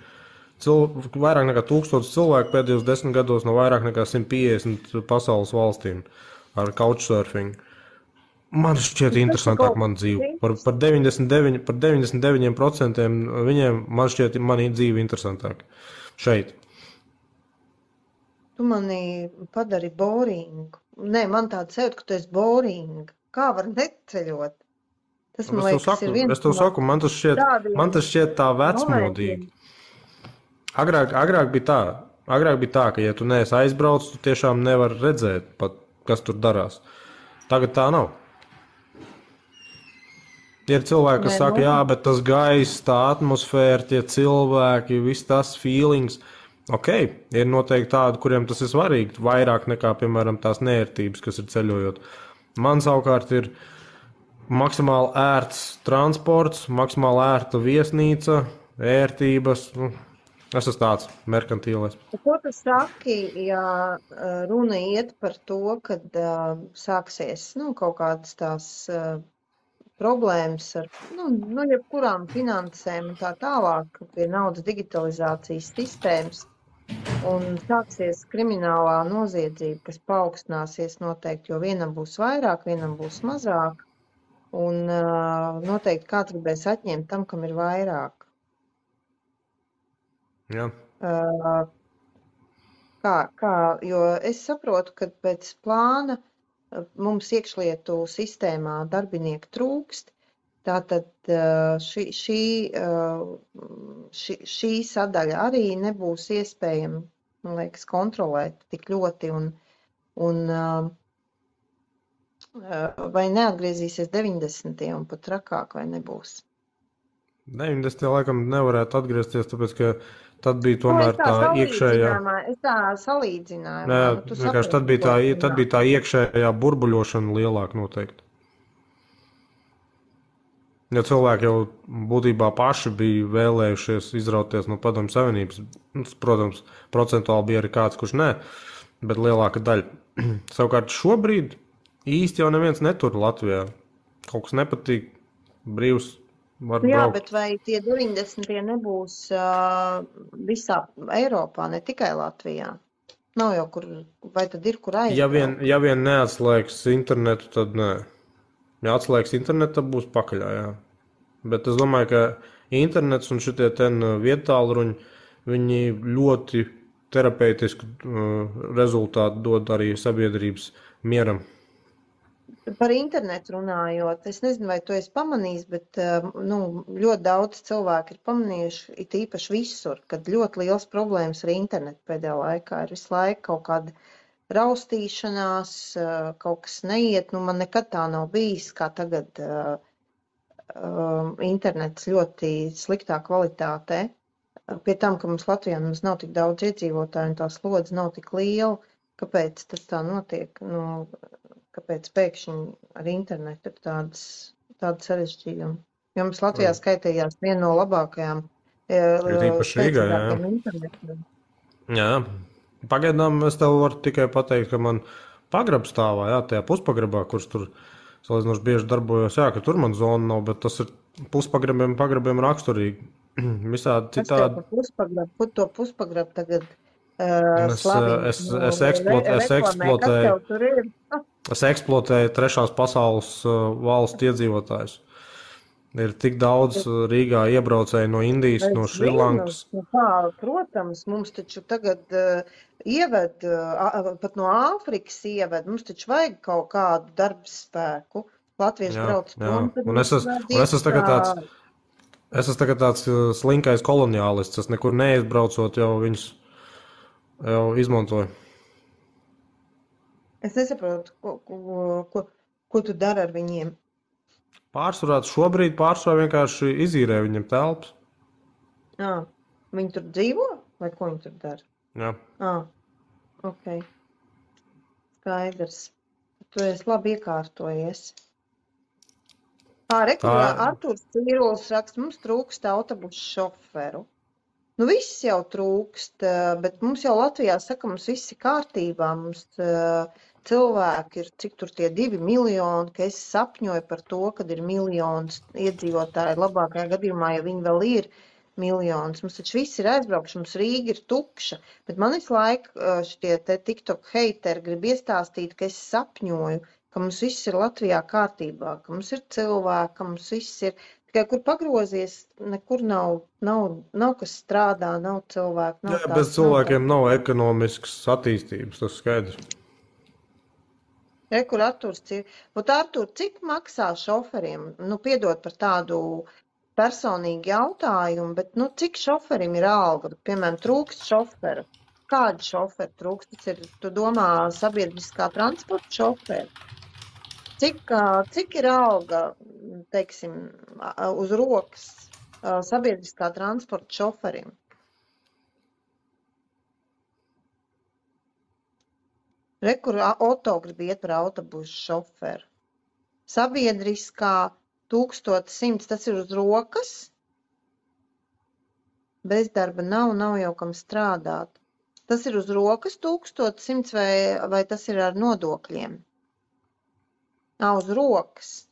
vairāk nekā 1000 cilvēku pēdējos 10 gados no vairāk nekā 150 pasaules valstīm ar couchsurfing. Man šķiet interesantāk man dzīve. Par 99% viņiem man šķiet mani dzīve interesantāk. Šeit. Tu mani padari boringu. Nē, man tāda sajūta, ka tu esi boringa. Kā var neceļot? Tas, man liekas, ir viens es tev saku, man tas šķiet tā vecmodīgi. Agrāk bija tā, ka, ja tu neesi aizbraucis, tu tiešām nevari redzēt, pat, kas tur darās. Tagad tā nav. Ir cilvēki, kas saka, jā, bet tas gaiss, tā atmosfēra, tie cilvēki, viss tas feelings. Ok, ir noteikti tādi, kuriem tas ir svarīgi, vairāk nekā, piemēram, tās neērtības, kas ir ceļojot. Man savukārt ir maksimāli ērts transports, maksimāli ērta viesnīca, ērtības. Es esmu tāds merkantīlais. Ko tu saki, ja runa iet par to, kad sāksies kaut kādas tās problēmas ar jebkurām finansēm un tā tālāk pie naudas digitalizācijas sistēmas un sāksies kriminālā noziedzība, kas paaugstināsies noteikti, jo vienam būs vairāk, vienam būs mazāk un noteikti kāds gribēs atņemt tam, kam ir vairāk. Jā. Jo es saprotu, ka pēc plāna mums iekšlietu sistēmā darbinieki trūkst, tātad šī sadaļa arī nebūs iespējama, man liekas, kontrolēt tik ļoti un vai neatgriezīsies 90. un pat trakāk vai nebūs. 90. laikam nevarētu atgriezties, tāpēc, ka tad bija tomēr tā iekšējā. Es tā salīdzināju. Vienkārši tad bija tā iekšējā burbuļošana lielāka noteikti. Ja cilvēki jau būtībā paši bija vēlējušies izrauties no Padomju Savienības, protams, procentuāli bija arī kāds, kurš nē, bet lielāka daļa. Savukārt šobrīd īsti jau neviens netur Latvijā. Kaut kas nepatīk, brīvs. Jā, bet vai tie 90. nebūs visā Eiropā, ne tikai Latvijā? Nav jau kur, vai tad ir kur aizbraukt? Ja vien neatslēgs internetu, tad nē. Ja atslēgs internetu, tad būs pakaļā, jā. Bet es domāju, ka internets un šitie vietālruņi, viņi ļoti terapeitisku rezultātu dod arī sabiedrības mieram. Par internetu runājot, es nezinu, vai tu esi pamanījis, bet ļoti daudz cilvēku ir pamanījuši, it īpaši visur, kad ļoti liels problēmas ar internetu pēdējā laikā ir visu laiku kaut kāda raustīšanās, kaut kas neiet. Man nekad tā nav bijis, kā tagad internets ļoti sliktā kvalitātē. Pie tam, ka mums Latvijā nav tik daudz iedzīvotāju un tā slodze nav tik liela, kāpēc tas tā notiek? Kāpēc pēkšņi ar internetu ir tāda sarežģījuma? Jo mums Latvijā skaitījās viena no labākajām internetiem. Jā, pagaidām es tev varu tikai pateikt, ka man pagrabs stāvā, jā, tajā puspagrabā, kurš tur salīdzinoši bieži darbojos, jā, ka tur man zona nav, bet tas ir pagrabiem raksturīgi. Visādi citādi. Kur to puspagrabu tagad Es eksploatēju trešās pasaules valstu iedzīvotājus. Ir tik daudz Rīgā iebraucēju no Indijas, no Šrilankas. Protams, mums taču tagad ieved, pat no Āfrikas ieved, mums taču vajag kaut kādu darbspēku. Latvieši brauc prom. Un es esmu tagad tāds slinkais koloniālists, es nekur neizbraucot, jau viņus jau izmantoju. Es nesaprotu, ko tu dari ar viņiem. Šobrīd vienkārši izīrē viņiem telpas. Viņi tur dzīvo? Vai ko viņi tur dara? Jā. Ok. Skaidrs. Tu esi labi iekārtojies. Artūrs Cīrulis raksta, mums trūkst autobusu šoferu. Viss jau trūkst, bet mums jau Latvijā saka, mums viss ir kārtībā. Mums cilvēku ir, cik tur tie 2 miljoni, ka es sapņoju par to, kad ir miljons iedzīvotāji, labākajā gadījumā, ja viņi vēl ir miljons. Mums taču viss ir aizbraukši, mums Rīga ir tukša, bet man visu laiku šitie te TikTok heiteri grib iestāstīt, ka es sapņoju, ka mums viss ir Latvijā kārtībā, ka mums ir cilvēki, ka mums viss ir, tikai kur pagrozies, nekur nav kas strādā, nav cilvēku, nav Jā, tās, bez cilvēkiem nav ekonomiskas attīstības, tas skaidrs. Kur Arturs ir. Ot, Artur, cik maksā šoferiem? Nu, piedod par tādu personīgu jautājumu, bet, nu, cik šoferim ir alga? Piemēram, trūkst šoferu. Kādi šoferi trūkst? Tas ir, tu domā, sabiedriskā transporta šoferi? Cik ir alga, teiksim, uz rokas sabiedriskā transporta šoferim? Kur Oto grib iet par autobusu šoferu. Sabiedriskā 1100, tas ir uz rokas. Bezdarba nav jau kam strādāt. Tas ir uz rokas 1100 vai tas ir ar nodokļiem? Uz rokas.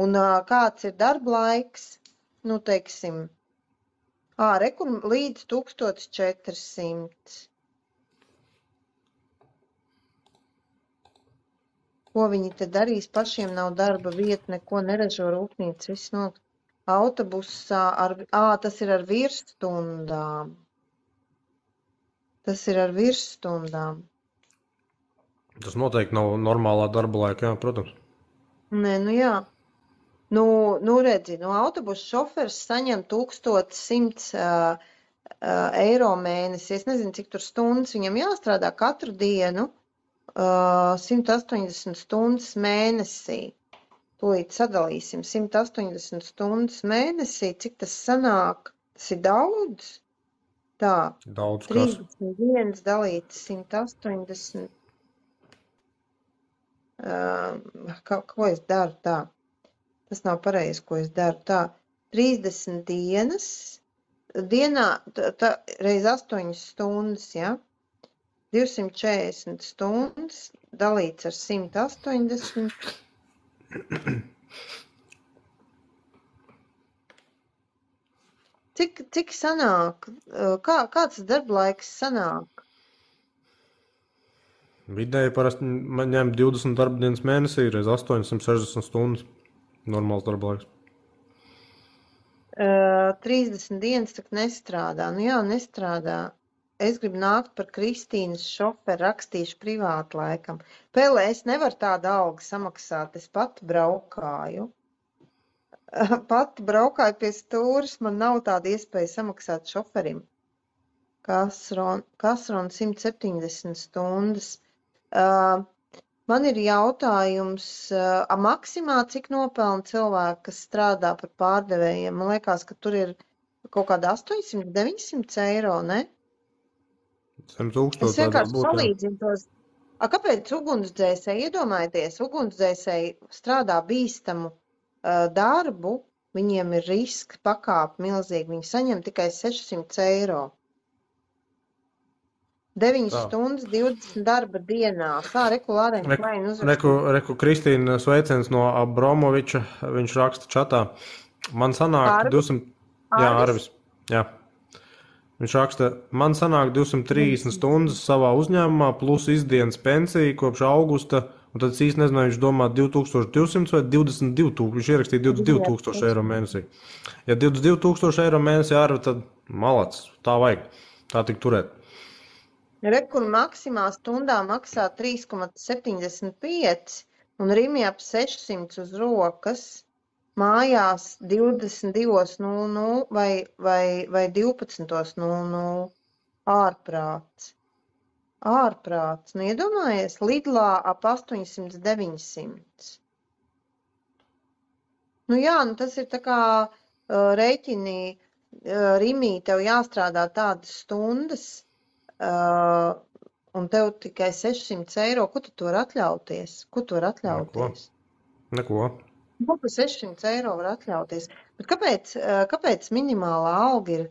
Un kāds ir darba laiks? Nu, teiksim, kur līdz 1400. Ko viņi te darīs? Pašiem nav darba vieta, neko neražo rūpnīca, viss no autobusā tas ir ar virsstundām. Tas ir ar virsstundām. Tas noteikti nav normālā darba laika, jā, protams. Nē, nu jā. Nu redzi, autobusu šoferis saņem 1100 eiro mēnesi. Es nezinu, cik tur stundas viņam jāstrādā katru dienu. 180 stundas mēnesī. Tūlīt sadalīsim 180 stundas mēnesī. Cik tas sanāk? Tas ir daudz? Tā. Daudz kas. 31 dalīts 180. Ko es daru tā? Tas nav pareizi, ko es daru tā. 30 dienas. Dienā reiz 8 stundas, ja? 240 stundas dalīts ar 180. Cik sanāk? Kāds darba laiks sanāk? Vidēji parasti man ņem 20 darba dienas mēnesī, reiz 860 stundas. Normāls darba laiks. 30 dienas tak nestrādā. Nu jā, nestrādā. Es gribu nākt par Kristīnas šoferu, rakstīšu privāti laikam. Pēlē, es nevaru tādu algu samaksāt, es pati braukāju. Pati braukāju pie stūras, man nav tāda iespēja samaksāt šoferim. Kasron 170 stundas. Man ir jautājums, maksimā cik nopelna cilvēki, kas strādā par pārdevējiem? Man liekas, ka tur ir kaut kāda 800-900 eiro, ne? 100,000 Es vienkārši salīdzinu tos. Kāpēc ugunsdzēsēji, iedomājieties, ugunsdzēsēji strādā bīstamu darbu, viņiem ir riska pakāpe milzīgi, viņi saņem tikai 600 eiro. 9 stundas, 20 darba dienā. Regulārēm klēni uzrakstīt. Reku Kristīna sveiciens no Abromoviča, viņš raksta čatā. Man sanāk 200... Jā, Arvis. Jā. Viņš raksta, man sanāk 230 stundas savā uzņēmumā plus izdienas pensija kopš augusta, un tad es īsti nezinu, viņš domā 2200 vai 22,000, viņš ierakstīja 22,000 eiro mēnesī. Ja 22,000 eiro mēnesī arī, tad malac, tā vajag, tā tik turēt. Rekur maksimā stundā maksā 3,75 un Rimi ap 600 uz rokas. Mājās 22:00 vai 12:00 ārprāts. Ārprāts. Nu, iedomājies, Lidlā ap 800-900. Nu jā, nu tas ir tā kā rēķini, Rimī, tev jāstrādā tādas stundas, un tev tikai 600 eiro. Ko tu var atļauties? Ko tu var atļauties? Neko. Ko par 600 eiro var atļauties? Bet kāpēc minimālā alga ir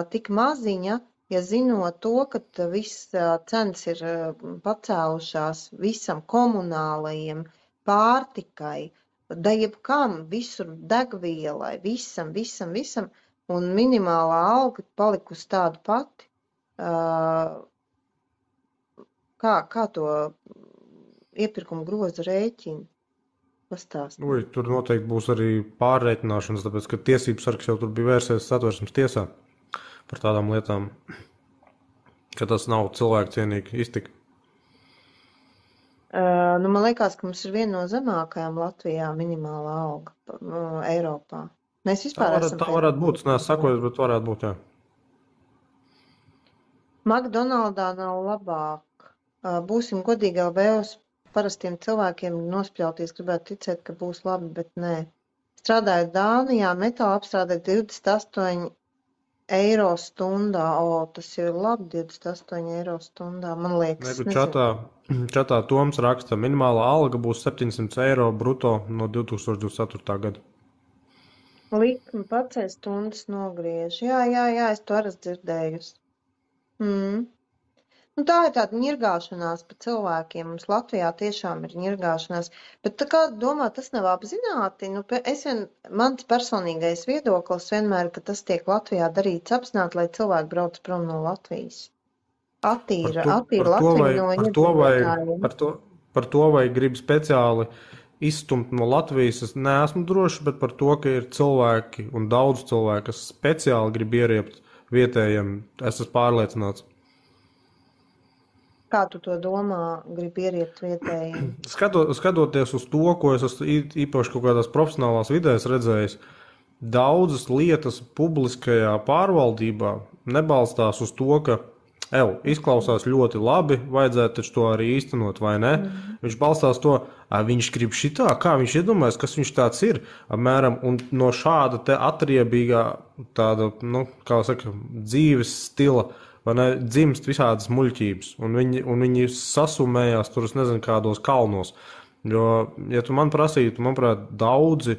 tik maziņa, ja zinot to, ka viss cenas ir pacēlušās visam komunālajiem, pārtikai, da jebkam, visur degvielai, visam, un minimālā alga palikusi tāda pati. Kā to iepirkuma grozu rēķinu? Pastāst. Tur noteikti būs arī pārreikināšanas, tāpēc, ka tiesības sargs jau tur bija vērsies Satversmes tiesā par tādām lietām, ka tas nav cilvēku cienīgi iztika. Man liekas, ka mums ir viena no zemākajām Latvijā minimālā alga Eiropā. Mēs vispār esam... Tā varētu būt, es neesmu sakojis, bet varētu būt, jā. McDonaldā nav labāk. Būsim godīgi, LV uz parastiem cilvēkiem nospļauties, gribētu ticēt, ka būs labi, bet nē. Strādājot Dānijā, metāla apstrādē 28 eiro stundā. Tas ir labi, 28 eiro stundā, man liekas. Čatā Toms raksta, minimālā alga būs 700 eiro bruto no 2024. gada. Likmi pacēl stundas nogriež. Jā, es to arī dzirdējusi. Tā ir tāda ņirgāšanās pa cilvēkiem. Mums Latvijā tiešām ir ņirgāšanās. Bet kā domā, tas nav apzināti? Mans personīgais viedoklis vienmēr, ka tas tiek Latvijā darīts apzināti, lai cilvēki brauc prom no Latvijas. Attīra Latviju no iedzīvotājiem. Par to, vai grib speciāli izstumt no Latvijas, es neesmu drošs, bet par to, ka ir cilvēki un daudz cilvēku, kas speciāli grib ieriept vietējiem, es esmu pārliecināts. Kā tu to domā, grib ieriept vietējiem? Skatoties uz to, ko es esmu īpaši kaut kādās profesionālās vidēs redzējis, daudzas lietas publiskajā pārvaldībā nebalstās uz to, ka izklausās ļoti labi, vajadzētu taču to arī īstenot, vai ne? Viņš balstās to, viņš grib šitā, kā viņš iedomājas, kas viņš tāds ir, apmēram, un no šāda te atriebīgā tāda, kā saka, dzīves stila, vai ne, dzimst visādas muļķības, un viņi sasumējās tur, es nezinu, kādos kalnos. Jo, ja tu man prasītu, manuprāt, daudzi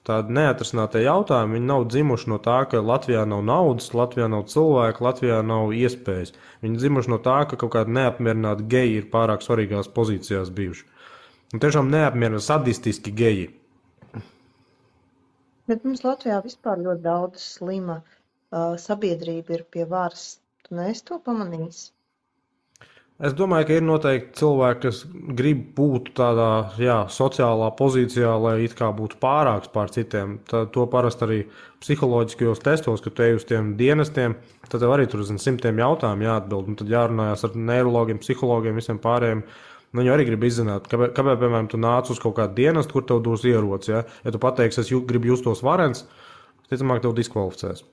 tādi neatrisinātie jautājumi, viņi nav dzimuši no tā, ka Latvijā nav naudas, Latvijā nav cilvēku, Latvijā nav iespējas. Viņi dzimuši no tā, ka kaut kādi neapmierināti geji ir pārāk svarīgās pozīcijās bijuši. Un tiešām neapmierināti sadistiski geji. Bet mums Latvijā vispār ļoti daudz slima sabiedrība ir pie varas. Tu neesi to pamanījis? Es domāju, ka ir noteikti cilvēki, kas grib būt tādā sociālā pozīcijā, lai it kā būtu pārāks pār citiem. To parasti arī psiholoģiskajos testos, kad tu ej uz tiem dienestiem, tad tev arī tur simtiem jautājumu jāatbild. Un tad jārunājās ar neirologiem, psihologiem, visiem pārējiem. Viņi arī grib izzināt, kāpēc, piemēram, tu nāc uz kaut kādu dienestu, kur tev dos ieroci. Ja tu pateiksi, es gribu justos varens, ticamāk tev diskvalificēs.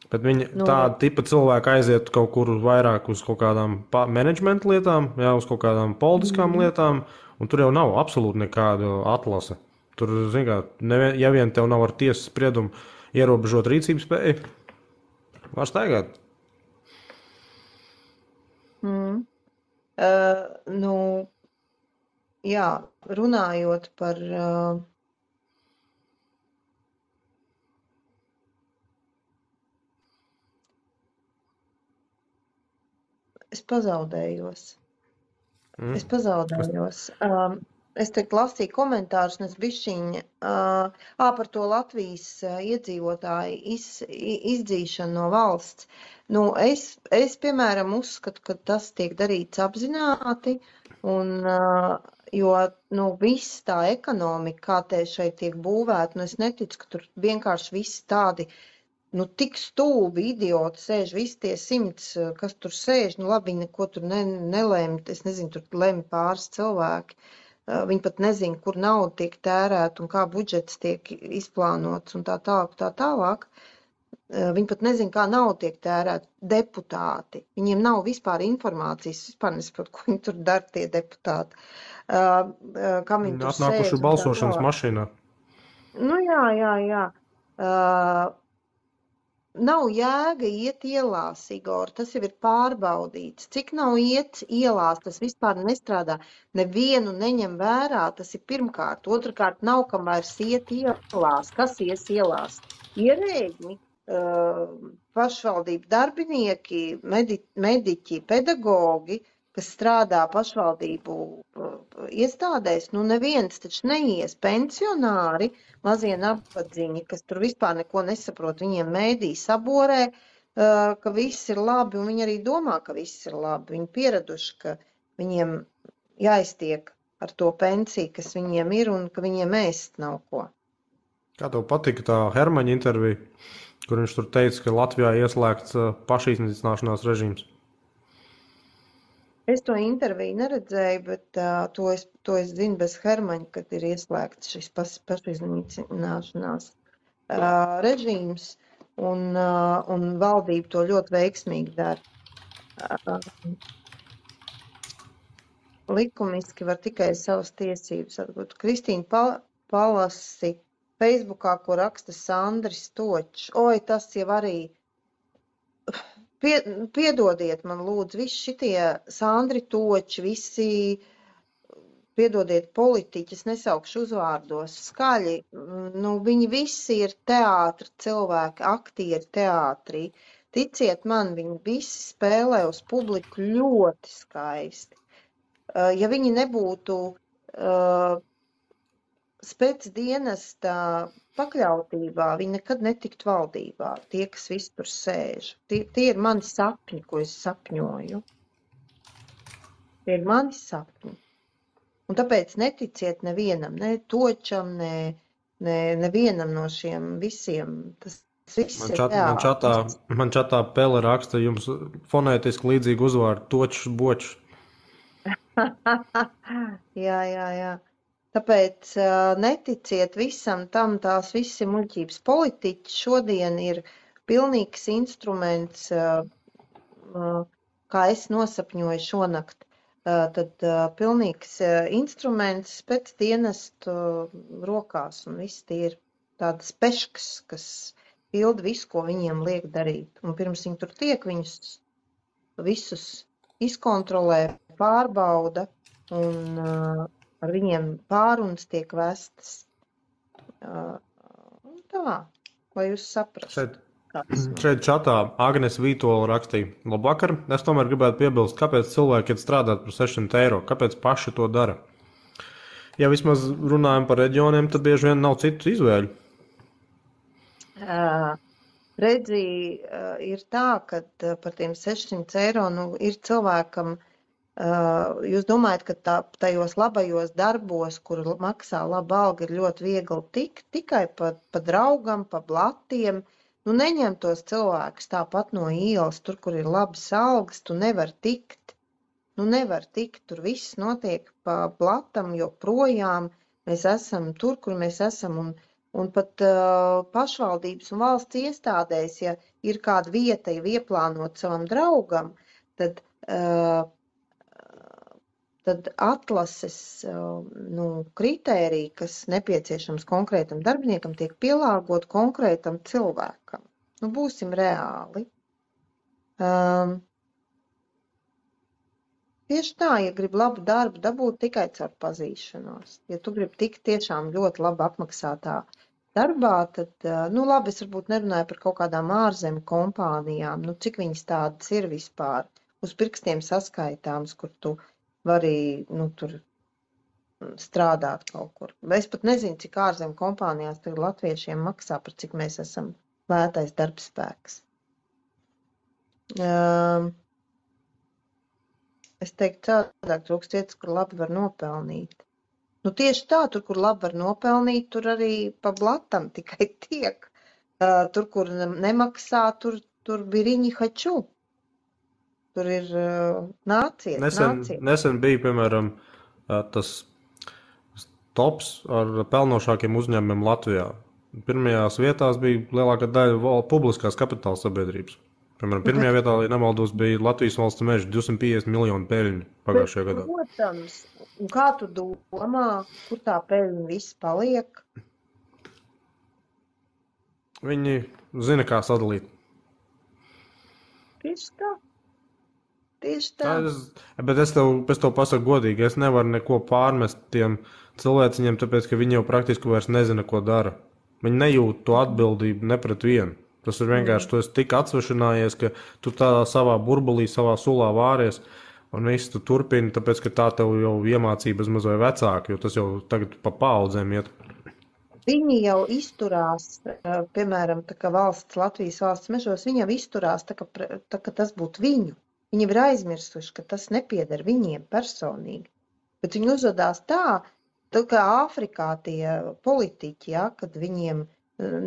Bet viņi tāda tipa cilvēki aiziet kaut kur vairāk uz kaut kādām menedžmenta lietām, uz kaut kādām politiskām lietām, un tur jau nav absolūti nekāda atlase. Tur, zin kā, ja vien tev nav ar tiesas spriedumu ierobežot rīcības spēju, var staigāt. Runājot par... Es pazaudējos. Es te lasīju komentārus, un es bišķiņ par to Latvijas iedzīvotāju izdzīšanu no valsts. Es piemēram, uzskatu, ka tas tiek darīts apzināti, jo viss tā ekonomika, kā te šeit tiek būvēta, es neticu, ka tur vienkārši visi tādi tik stulbi idioti sēž, visi tie 100, kas tur sēž, labi, viņi neko tur nelēma, es nezinu, tur lemj pāris cilvēki. Viņi pat nezina, kur nauda tiek tērēta un kā budžets tiek izplānots un tā tālāk. Viņi pat nezina, kā nauda tiek tērēta. Deputāti. Viņiem nav vispār informācijas, vispār nesaprot, ko viņi tur dara, tie deputāti. Kam viņi tur sēž. Atnākuši balsošanas mašīnā. Jā. Nav jēga iet ielās, Igor, tas jau ir pārbaudīts. Cik nav iet ielās, tas vispār nestrādā. Nevienu neņem vērā, tas ir pirmkārt. Otrakārt, nav kam vairs iet ielās. Kas ies ielās? Ierēģi. pašvaldību darbinieki, mediķi, pedagogi, kas strādā pašvaldību iestādēs, nu neviens taču neies pensionāri, mazie nabadzīņi, kas tur vispār neko nesaprot, viņiem mēdī saborē, ka viss ir labi, un viņi arī domā, ka viss ir labi. Viņi pieraduši, ka viņiem jāiztiek ar to pensiju, kas viņiem ir, un ka viņiem ēst nav ko. Kā tev patika tā Hermaņa intervija, kur viņš tur teica, ka Latvijā ieslēgts pašiznīcināšanās režīms? Es to interviju neredzēju, bet to es zinu bez Hermaņa, kad ir ieslēgts šis pašiznīcināšanās režīms, un valdība to ļoti veiksmīgi dara. Likumiski var tikai savas tiesības atgūt. Kristīna palasi Facebookā, ko raksta Sandris Točs. Oi, tas jau arī... Piedodiet man, lūdzu, visi šitie Sandri Toči, visi, piedodiet, politiķi, es nesaukšu uzvārdos, skaļi, nu, viņi visi ir teātra cilvēki, aktieri teātrī. Ticiet man, viņi visi spēlē uz publiku ļoti skaisti. Ja viņi nebūtu spēcdienesta pakļautībā, viņi nekad netiktu valdībā, tie, kas visi tur sēž. Tie ir mani sapņi, ko es sapņoju. Tie ir mani sapņi. Un tāpēc neticiet nevienam, ne Točam, nevienam no šiem visiem. Tas viss ir teātris. Man čatā Pele raksta jums fonētiski līdzīgu uzvārdu Točs Bočs. Jā. Tāpēc neticiet visam tam, tās visi muļķības. Politiķi šodien ir pilnīgs instruments, kā es nosapņoju šonakt, tad pilnīgs instruments pēc dienestu rokās, un viss tie ir tādas peškas, kas pilda visu, ko viņiem liek darīt. Un pirms viņi tur tiek, viņus visus izkontrolē, pārbauda, un ar viņiem pārunas tiek vestas. Tā, lai jūs saprastu. Šeit čatā Agnes Vītola rakstīja: Labvakar, es tomēr gribētu piebilst, kāpēc cilvēki iet strādāt par 600 eiro, kāpēc paši to dara. Ja vismaz runājam par reģioniem, tad bieži vien nav citu izvēļu. Redzi, ir tā, ka par tiem 600 eiro, nu, ir cilvēkam, jūs domājat, ka tajos labajos darbos, kur maksā laba alga, ir ļoti viegli tikt, tikai pa draugam, pa blatiem. Nu, neņem tos cilvēkus tāpat no ielas, tur, kur ir labas algas, tu nevar tikt. Nu, nevar tikt, tur viss notiek pa blatam, jo projām mēs esam tur, kur mēs esam, un pat pašvaldības un valsts iestādēs, ja ir kāda vieta, ja ieplānot savam draugam, tad atlases kritēriji, kas nepieciešams konkrētam darbiniekam, tiek pielāgot konkrētam cilvēkam. Nu, būsim reāli. Tieši tā, ja grib labu darbu, dabūt tikai caur pazīšanos. Ja tu gribi tikt tiešām ļoti labi apmaksātā darbā, tad, labi, es varbūt nerunāju par kaut kādām ārzemju kompānijām, cik viņas tādas ir vispār, uz pirkstiem saskaitāms, kur tu vari, tur strādāt kaut kur. Es pat nezinu, cik ārzemju kompānijās tagad latviešiem maksā, par cik mēs esam lētais darbspēks. Es teiktu, cādāk trūkst vietas, kur labi var nopelnīt. Nu, tieši tā, tur, kur labi var nopelnīt, tur arī pa blatam tikai tiek. Tur, kur nemaksā, tur biriņi haču. Tur ir nāciet. Nesen bija, piemēram, tas tops ar pelnošākiem uzņēmumiem Latvijā. Pirmajās vietās bija lielākā daļa publiskās kapitāla sabiedrības. Piemēram, pirmajā vietā, ja nemaldos, bija Latvijas valsts meža 250 miljonu peļņu pagājušajā gadā. Protams, un kā tu domā, kur tā peļņa viss paliek? Viņi zina, kā sadalīt. Tieši tā. Bet es tev pasaku godīgi, es nevaru neko pārmest tiem cilvēciņiem, tāpēc, ka viņi jau praktiski vairs nezina, ko dara. Viņi nejūt to atbildību ne pret vienu. Tas ir vienkārši, tu esi tik atsvešinājies, ka tu tādā savā burbulī, savā sulā vāries, un viss tu turpini, tāpēc, ka tā tev jau iemācība maz vai vecāka, jo tas jau tagad pa paudzēm iet. Viņi jau izturās, piemēram, tā kā Latvijas valsts mežos, viņi jau izturās, tā ka tas būtu viņu. Viņi ir aizmirsuši, ka tas nepieder viņiem personīgi. Bet viņi uzvedās tā kā Āfrikā tie politiķi, ja, kad viņiem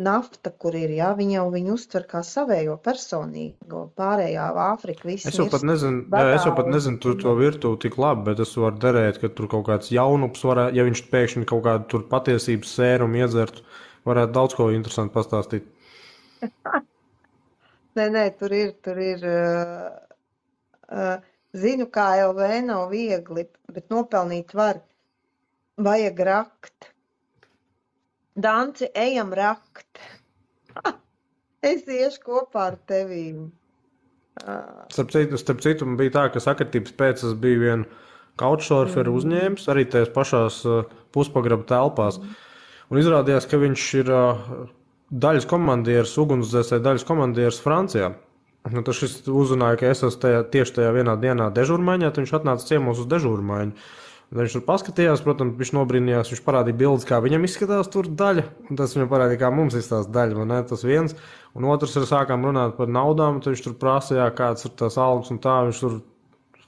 nafta, kur ir, ja, viņi uztver kā savējo personīgo, pārējā Āfrika, viss Es jau pat nezinu to virtuvi tik labi, bet es varu derēt, ka tur kaut kāds jaunups varētu, ja viņš pēkšņi kaut kādu tur patiesības sērumu iedzertu, varētu daudz ko interesanti pastāstīt. Nē, tur ir, zinu, kā LV nav viegli, bet nopelnīt var. Vajag rakt. Danci, ejam rakt. Es iešu kopā ar tevīm. Starp citu, man bija tā, ka sakritības pēc es biju vienu couchsurferu uzņēmis, arī tajās pašās puspagraba telpās. Un izrādījās, ka viņš ir daļas komandieris, ugunsdzēsēja daļas komandieris Francijā. Nu, tad šis uzzināja, ka es esmu tieši tajā vienā dienā dežūrmaiņā, tad viņš atnāca ciemos uz dežūrmaiņu. Viņš tur paskatījās, protams, viņš nobrīnījās, viņš parādīja bildes, kā viņam izskatās tur daļa, un tas viņam parādīja, kā mums izskatās daļa, vai ne, tas viens. Un otrs ir sākām runāt par naudām, tad viņš tur prasīja, kāds ir tās algas un tā, viņš tur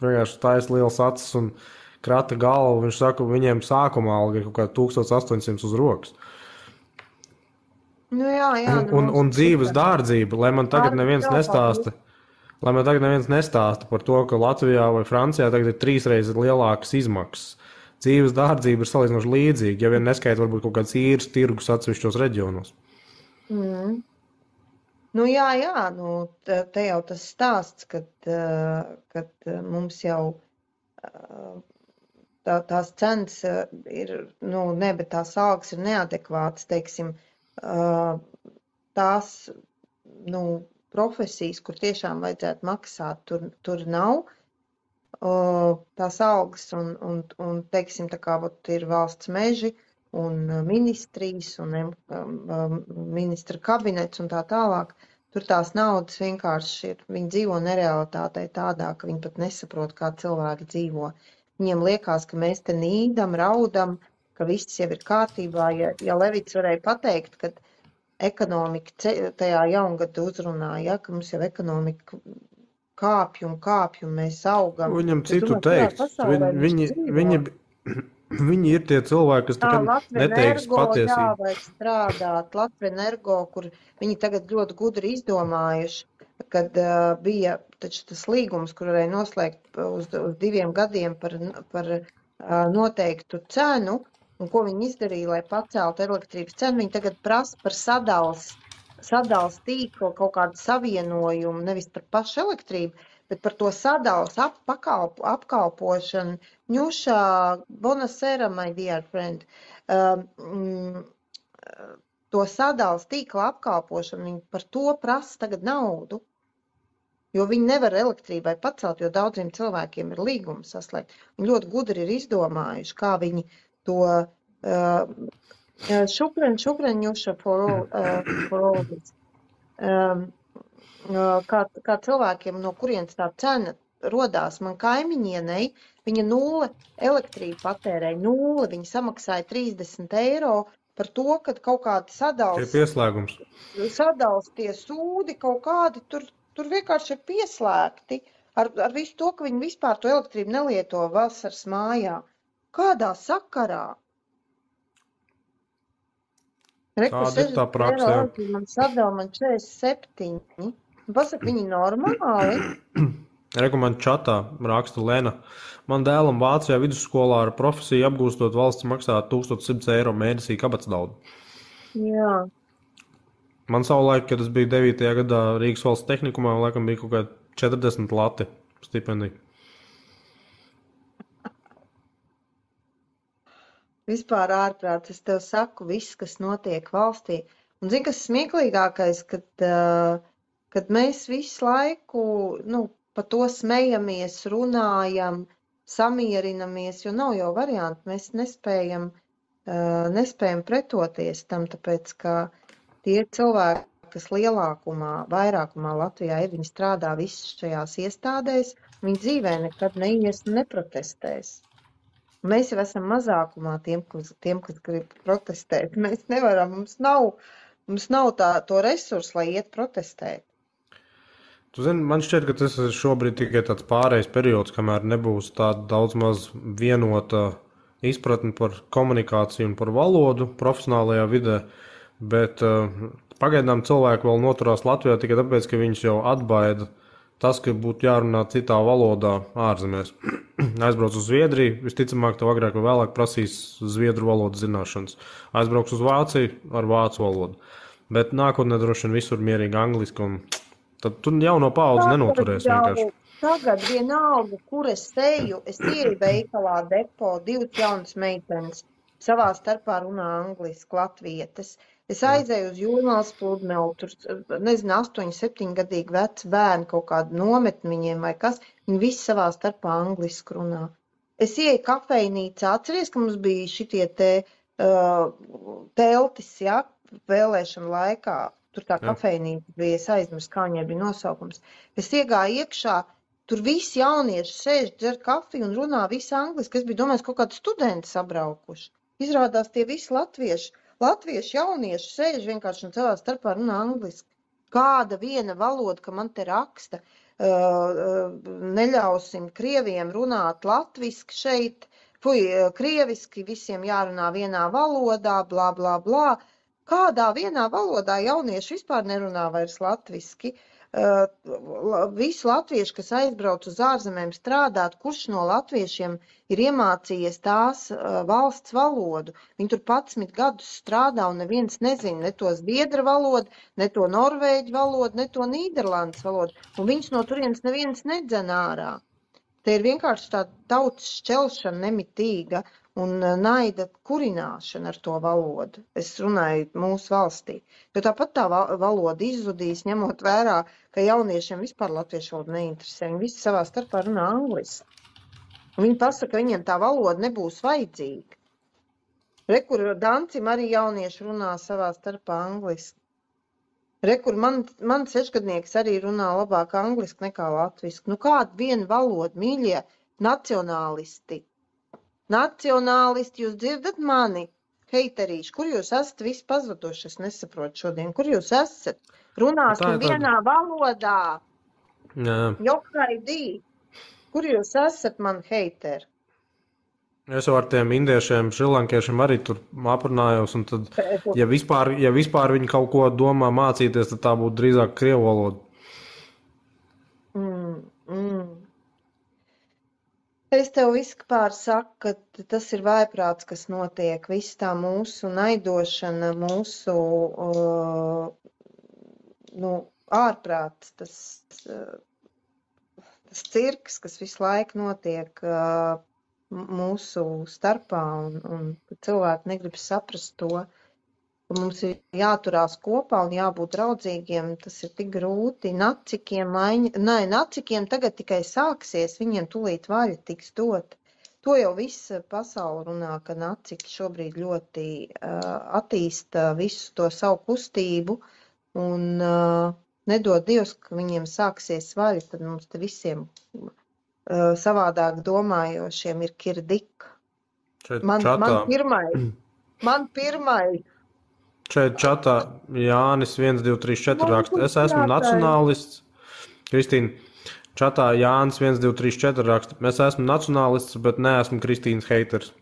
vienkārši taisa liels acis un krata galvu, viņš saka, viņiem sākuma alga ir kaut kā 1800 uz rokas. Nu jā, un dzīves dārdzība, lai man tagad neviens nestāsta. Lai man tagad neviens nestāsta par to, ka Latvijā vai Francijā tagad ir 3 reizes lielākas izmaksas. Dzīves dārdzība ir salīdzinoši līdzīga, ja vien neskaita varbūt kaut kāds īres tirgus atsevišķos reģionos. Nu jā, te jau tas stāsts, kad mums jau tās cenas ir, bet tās algas ir neadekvātas, teiksim, tās, profesijas, kur tiešām vajadzētu maksāt, tur nav tās algas un teiksim, tā kā ir valsts meži un ministrijas un ministra kabinets un tā tālāk, tur tās naudas vienkārši ir, viņi dzīvo nerealitātei tādā, ka viņi pat nesaprot, kā cilvēki dzīvo. Viņiem liekas, ka mēs te nīdam, raudam, ka viss jau ir kārtībā. Ja Levits varēja pateikt, ka ekonomika tajā jaungada uzrunāja, ka mums jau ekonomika kāpj un mēs augam. Viņam citu teikt. Viņi ir tie cilvēki, kas neteiks patiesību. Jā, vajag strādāt. Latvenergo, kur viņi tagad ļoti gudri izdomājuši, kad bija taču tas līgums, kur varēja noslēgt uz 2 gadiem par noteiktu cenu. Un ko viņi izdarīja, lai paceltu elektrības cenu? Viņi tagad prasa par sadals tīklu kaut kādu savienojumu, nevis par pašu elektrību, bet par to sadals apkalpošanu. Ņušā, bonasera, my dear friend. To sadals tīkla apkalpošanu, viņi par to prasa tagad naudu. Jo viņi nevar elektrībai pacelt, jo daudziem cilvēkiem ir līgumi saslēgt. Viņi ļoti gudri ir izdomājuši, kā viņi to šukreņuša for all this. Kā cilvēkiem, no kurienes tā cena rodās, man kaimiņienei, viņa 0 elektrību patērēja, 0, viņa samaksāja 30 eiro par to, ka kaut kādi sadals tie sūdi kaut kādi, tur vienkārši ir pieslēgti ar visu to, ka viņi vispār to elektrību nelieto vasaras mājā. Kādā sakarā? Tāda ir tā praksa. Man sadala man 47. Pasaka, viņi normāli. Man čatā raksta Lena. Man dēlam Vācijā vidusskolā ar profesiju apgūstot valsts maksā 1100 eiro mēnesī kabatsnaudu. Jā. Man savulaik, kad es biju 9. gadā Rīgas valsts tehnikumā, laikam bija kaut kā 40 lati stipendija. Vispār ārprāts, es tev saku, viss, kas notiek valstī. Un zini, kas smieklīgākais, kad mēs visu laiku, pa to smejamies, runājam, samierinamies, jo nav jau varianti, mēs nespējam pretoties tam, tāpēc, ka tie cilvēki, kas vairākumā Latvijā ir, viņi strādā visas šajās iestādēs, viņi dzīvē nekad neies un neprotestēs. Mēs jau esam mazākumā tiem, kas grib protestēt. Mēs nevaram, mums nav to resursu, lai iet protestēt. Tu zini, man šķiet, ka tas ir šobrīd tikai tāds pārējais periods, kamēr nebūs tāda daudz maz vienota izpratne par komunikāciju un par valodu profesionālajā vidē, bet pagaidām cilvēki vēl noturās Latvijā tikai tāpēc, ka viņš jau atbaida tas, ka būtu jārunā citā valodā ārzemēs. Aizbrauc uz Zviedriju, visticamāk, tev agrāk vai vēlāk prasīs zviedru valodas zināšanas. Aizbrauc uz Vāciju ar vācu valodu. Bet nākotnē droši vien visur mierīgi angliski, un tad tu jauno paudzi nenoturēsi vienkārši. Tagad vienalga, kur es eju, es ieju veikalā depo, 2 jaunas meitenes savā starpā runā angliski, latvietes. Es aizēju uz Jūrmālas pludmeli, tur, nezinu, 8, 7 gadīgi veci bērni, kaut kādu nometni viņiem vai kas, viņi visi savā starpā angliski runā. Es ieju kafejnīcā, atceries, ka mums bija šitie teltis, ja, vēlēšana laikā, tur tā kafejnīca bija, es aizmirsu, kā viņai bija nosaukums. Es iegāju iekšā, tur visi jaunieši sēž, dzer kafiju un runā visi angliski, es biju domājis, kaut kādi studenti sabraukuši. Izrādās tie visi latvieši jaunieši sēž vienkārši un savā starpā runā angliski. Kāda viena valoda, ka man te raksta, neļausim krieviem runāt latviski šeit, krieviski visiem jārunā vienā valodā, blā, blā, blā. Kādā vienā valodā jaunieši vispār nerunā vairs latviski? Visi latvieši, kas aizbrauc uz ārzemēm strādāt, kurš no latviešiem ir iemācījies tās valsts valodu. Viņi tur 11 gadus strādā un neviens nezina ne to zviedru valodu, ne to norvēģu valodu, ne to nīderlandes valodu. Un viņus no turienes neviens nedzen ārā. Te ir vienkārši tā tautas šķelšana nemitīga un naida kurināšana ar to valodu. Es runāju mūsu valstī. Jo tāpat tā valoda izzudīs, ņemot vērā, ka jauniešiem vispār latviešu valoda neinteresē. Viņi visi savā starpā runā angliski. Un viņi pasaka, ka viņiem tā valoda nebūs vajadzīga. Rekur Dancim arī jaunieši runā savā starpā angliski. Rekur man 6-gadnieks arī runā labāk angliski nekā latviski. Nu kāda viena valoda, mīļie nacionālisti? Nacionālisti, jūs dzirdat mani? Heiterīši, kur jūs esat visi pazuduši? Es nesaprotu šodien. Kur jūs esat? Runāsim vienā valodā. Jokaidī. Kur jūs esat, man heiteri? Es jau ar tiem indiešiem, šrilankiešiem arī tur aprunājos, un tad, ja vispār viņi kaut ko domā mācīties, tad tā būtu drīzāk krievu valoda. Es tev vispār saku, ka tas ir vājprāts, kas notiek, viss tā mūsu naidošana, mūsu ārprāts, tas cirks, kas visu laiku notiek mūsu starpā, un cilvēki negrib saprast to, ka mums ir jāturās kopā un jābūt draudzīgiem, tas ir tik grūti. Nacikiem tagad tikai sāksies, viņiem tūlīt vaļa tiks dot. To jau viss pasaule runā, ka naciki šobrīd ļoti attīsta visu to savu kustību, un nedod Dievs, ka viņiem sāksies vaļa, tad mums te visiem savādāk domājošiem ir kirdika. Man pirmai. Šeit čatā Jānis 1, 2, 3, 4 raksta. Es esmu nacionālists. Kristīna, čatā Jānis 1, 2, 3, 4 raksta. Es esmu nacionālists, bet neesmu Kristīnas heiters.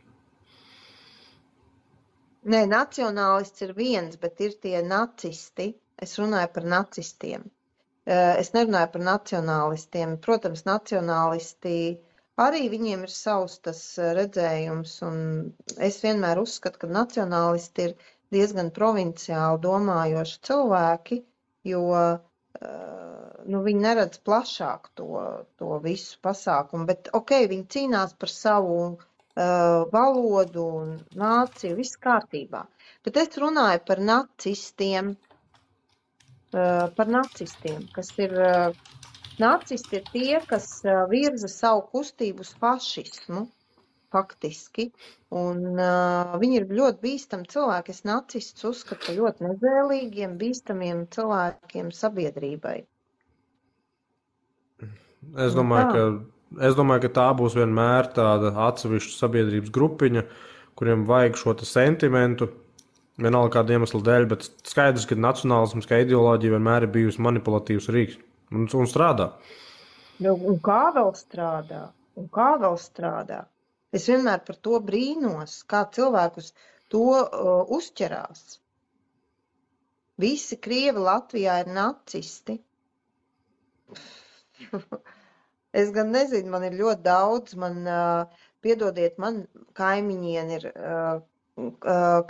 Nē, nacionālists ir viens, bet ir tie nacisti. Es runāju par nacistiem. Es nerunāju par nacionālistiem. Protams, nacionālisti arī viņiem ir savs tas redzējums, un es vienmēr uzskatu, ka nacionālisti ir diezgan provinciāli domājoši cilvēki, jo viņi neredz plašāk to visu pasākumu, bet viņi cīnās par savu valodu un nāciju, viss kārtībā. Bet es runāju par nacistiem, kas ir, nacisti ir tie, kas virza savu kustību uz fašismu, faktiski. Un viņi ir ļoti bīstami cilvēki. Es nacistus uzskatu par ļoti nezēlīgiem, bīstamiem cilvēkiem sabiedrībai. Es domāju, ka tā būs vienmēr tāda atsevišķa sabiedrības grupiņa, kuriem vajag šo sentimentu, vienalga kāda iemesla dēļ, bet skaidrs, ka nacionālisms kā ideoloģija vienmēr ir bijusi manipulatīvs rīks un strādā. Un kā vēl strādā? Es vienmēr par to brīnos, kā cilvēkus to uzķerās. Visi Krievi Latvijā ir nacisti. Es gan nezinu, man ir ļoti daudz, piedodiet, man kaimiņieni ir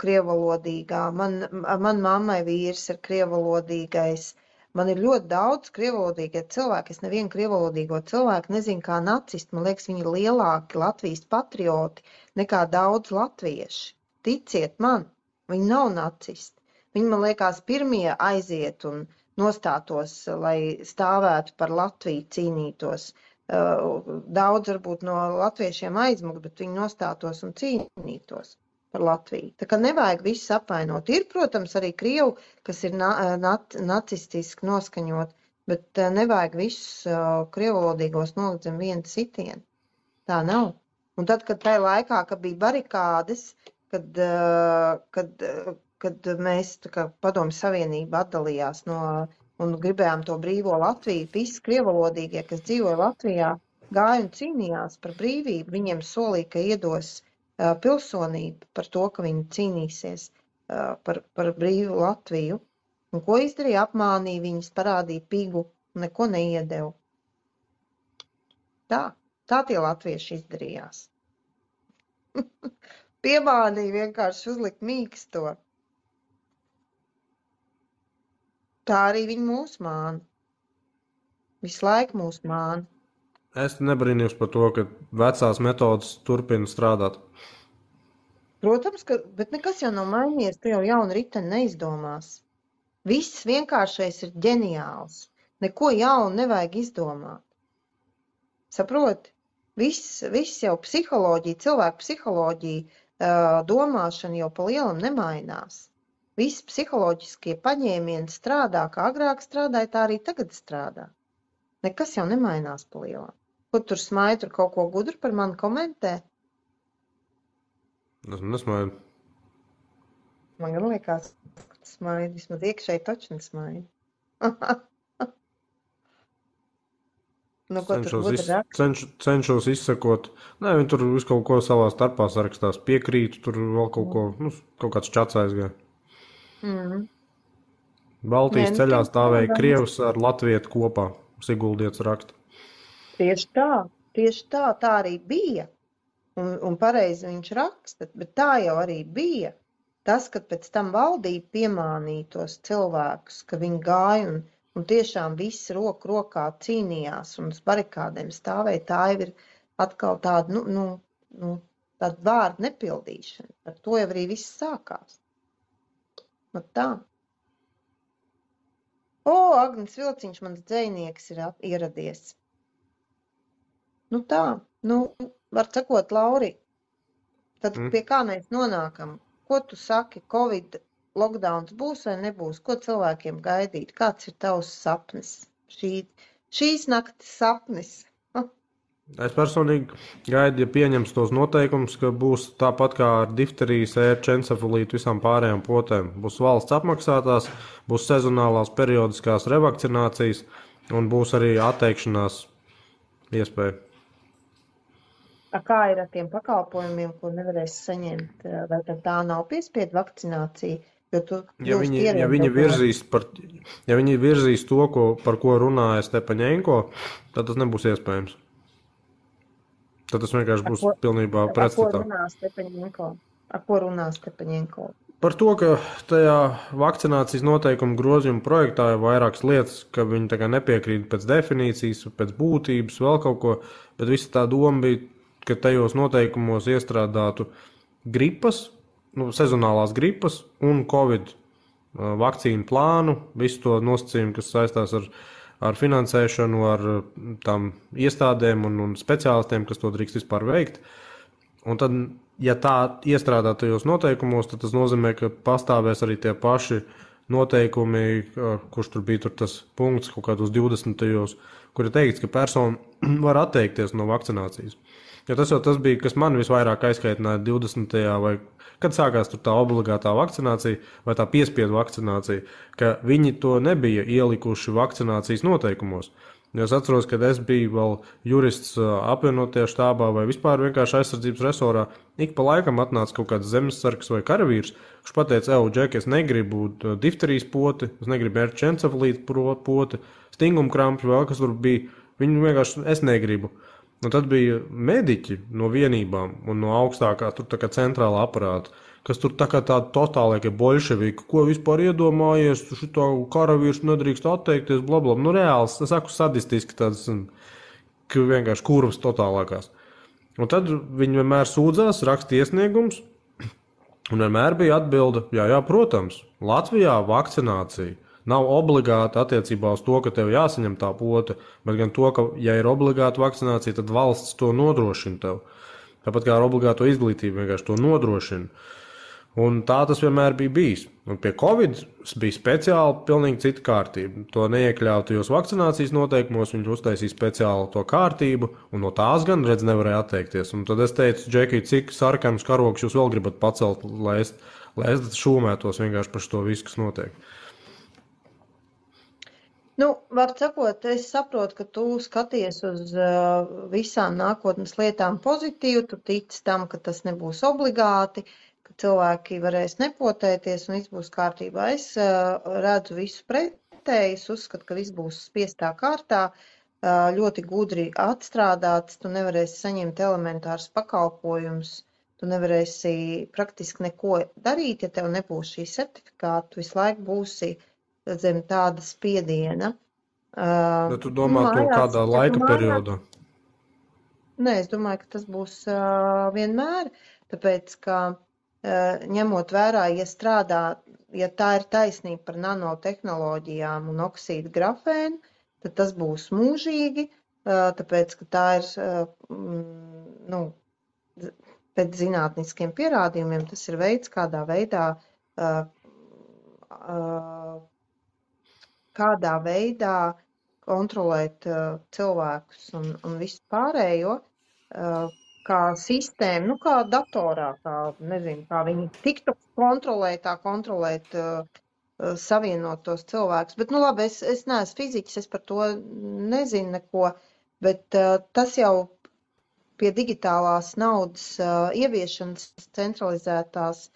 krievalodīgā, man mammai vīrs ir krievalodīgais. Man ir ļoti daudz krievalodīgie cilvēki. Es nevienu krievalodīgo cilvēku nezinu kā nacisti. Man liekas, viņi ir lielāki Latvijas patrioti nekā daudz latvieši. Ticiet man, viņi nav nacisti. Viņi, man liekas, pirmie aiziet un nostātos, lai stāvētu par Latviju, cīnītos. Daudz varbūt no latviešiem aizmukt, bet viņi nostātos un cīnītos par Latviju. Tā kā nevajag visus apvainot. Ir, protams, arī krievu, kas ir nacistiski noskaņot, bet nevajag visus krievalodīgos nolikt zem viena sitiena. Tā nav. Un tad, kad tajā laikā, kad bija barikādes, kad mēs, tā kā Padomju Savienība atdalījās un gribējām to brīvo Latviju, visi krievalodīgie, kas dzīvoja Latvijā, gāja un cīnījās par brīvību. Viņiem solīja, ka iedos pilsonību par to, ka viņi cīnīsies par brīvu Latviju. Un ko izdarīja? Apmānīja viņus, parādīja pigu, neko neiedeva. Tā tie latvieši izdarījās. Piemānīja vienkārši uzlikt mīksto. Tā arī viņi mūs māna. Visu laiku mūs māna. Es nebrīnījos par to, ka vecās metodas turpina strādāt. Protams, bet nekas jau nav mainījies, tu jau jaunu riteni neizdomās. Viss vienkāršais ir ģeniāls. Neko jaunu nevajag izdomāt. Saproti? Viss jau psiholoģija, cilvēku psiholoģija, domāšana jau pa lielam nemainās. Visi psiholoģiskie paņēmieni strādā, kā agrāk strādāja, tā arī tagad strādā. Nekas jau nemainās pa lielam. Ko tur smaidi, tur kaut ko gudru par mani komentē? Es nesmaidu. Man gan liekas, ka tas smaidi, vismaz iekšēji taču nesmaidi. Cenšos izsekot. Nē, viņi tur visu kaut ko savā starpā sarakstās. Piekrītu, tur vēl kaut ko, kaut kāds čats aizgāja. Baltijas ceļā stāvēja Krievs ar latvietu kopā. Siguldietis raksta. Tieši tā arī bija. Un pareizi viņš raksta, bet tā jau arī bija. Tas, kad pēc tam valdība piemānīja tos cilvēkus, ka viņi gāja un tiešām visi roku rokā cīnījās un uz barikādēm stāvēja, tā jau ir atkal tāda, tāda vārda nepildīšana. Ar to jau arī viss sākās. Nu tā. Agnis Vilciņš, mans dzejnieks, ir ieradies. Nu tā, var sakot, Lauri, tad pie kā mēs nonākam? Ko tu saki, Covid lockdowns būs vai nebūs? Ko cilvēkiem gaidīt? Kāds ir tavs sapnis? Šīs naktis sapnis. Es personīgi gaidu, ja pieņems tos noteikumus, ka būs tāpat kā ar difterijas, ērču, encefalītu, visām pārējām potēm. Būs valsts apmaksātās, būs sezonālās periodiskās revakcinācijas un būs arī atteikšanās iespēja. Kā ir ar tiem pakalpojumiem, ko nevarēs saņemt? Vai tā nav piespiedu vakcinācija? Ja viņi virzīs to, par ko runāja Stepaņenko, tad tas nebūs iespējams. Tad tas vienkārši būs pilnībā pretstatā. Ar ko runā Stepaņenko? Par to, ka tajā vakcinācijas noteikumu grozījuma projektā ir vairākas lietas, ka viņi tā kā nepiekrīt pēc definīcijas, pēc būtības, vēl kaut ko, bet visa tā doma bija, ka tajos noteikumos iestrādātu gripas, sezonālās gripas un Covid vakcīnu plānu, visu to nosacījumu, kas saistās ar finansēšanu, ar tām iestādēm un speciālistiem, kas to drīkst vispār veikt. Un tad, ja tā iestrādā tajos noteikumos, tad tas nozīmē, ka pastāvēs arī tie paši noteikumi, kurš tur bija tas punkts kaut kādos 20. kur ir teikts, ka persona var atteikties no vakcinācijas. Jo tas jau tas bija, kas man visvairāk aizkaitināja 20. vai kad sākās tā obligātā vakcinācija vai tā piespiedu vakcinācija, ka viņi to nebija ielikuši vakcinācijas noteikumos. Es atceros, kad es biju vēl jurists apvienotajā štābā vai vispār vienkārši aizsardzības resorā. Ik pa laikam atnāca kaut kāds zemesargs vai karavīrs, kurš pateica, Džek, es negribu difterijas poti, es negribu erķencefalītu poti, stingumkrampju, vēl kas tur bija. Viņu vienkārši es negribu. Un tad bija mediķi no vienībām un no augstākā tur tā kā centrālā aparāta, kas tur tā kā tādi totālākie bolševiki, ko vispār iedomājies, šito karavīrs nedrīkst atteikties, blablabla. Nu, reāls, es saku sadistiski tāds, ka vienkārši kurvas totālākās. Un tad viņi vienmēr sūdzās, raksta iesniegums, un vienmēr bija atbilde, jā, protams, Latvijā vakcinācija nav obligāta attiecībā uz to, ka tev jāsaņem tā pota, bet gan to, ka, ja ir obligāta vakcinācija, tad valsts to nodrošina tev. Tāpat kā ar obligāto izglītību vienkārši to nodrošina. Un tā tas vienmēr bija bijis. Un pie Covid bija speciāli pilnīgi cita kārtība. To neiekļāva tajos vakcinācijas noteikumos, viņš uztaisīja speciāli to kārtību, un no tās gan, redz, nevarēja atteikties. Un tad es teicu, Džeki, cik sarkanus karogus jūs vēl gribat pacelt, lai es šūmētos vienkārši par to visu, kas notiek. Nu, var sakot, es saprotu, ka tu skaties uz visām nākotnes lietām pozitīvi, tu tici tam, ka tas nebūs obligāti, ka cilvēki varēs nepotēties un viss būs kārtībā. Es redzu visu pretēji, es uzskatu, ka viss būs spiestā kārtā, ļoti gudri atstrādāts, tu nevarēsi saņemt elementārus pakalpojumus, tu nevarēsi praktiski neko darīt, ja tev nebūs šī certifikāta, tu visu laiku būsi zem tāda spiediena. Bet tu domā to kādā laika periodā? Nē, es domāju, ka tas būs vienmēr, tāpēc, ka ņemot vērā, ja tā ir taisnība par nanotehnoloģijām un oksīdu grafēnu, tad tas būs mūžīgi, tāpēc, ka tā ir, pēc zinātniskiem pierādījumiem, tas ir veids, kādā veidā kontrolēt cilvēkus un visu pārējo, kā sistēmu, kā datorā, kā viņi tiktu kontrolēt savienot tos cilvēkus. Bet, labi, es neesmu fiziķis, es par to nezinu neko, bet tas jau pie digitālās naudas ieviešanas centralizētās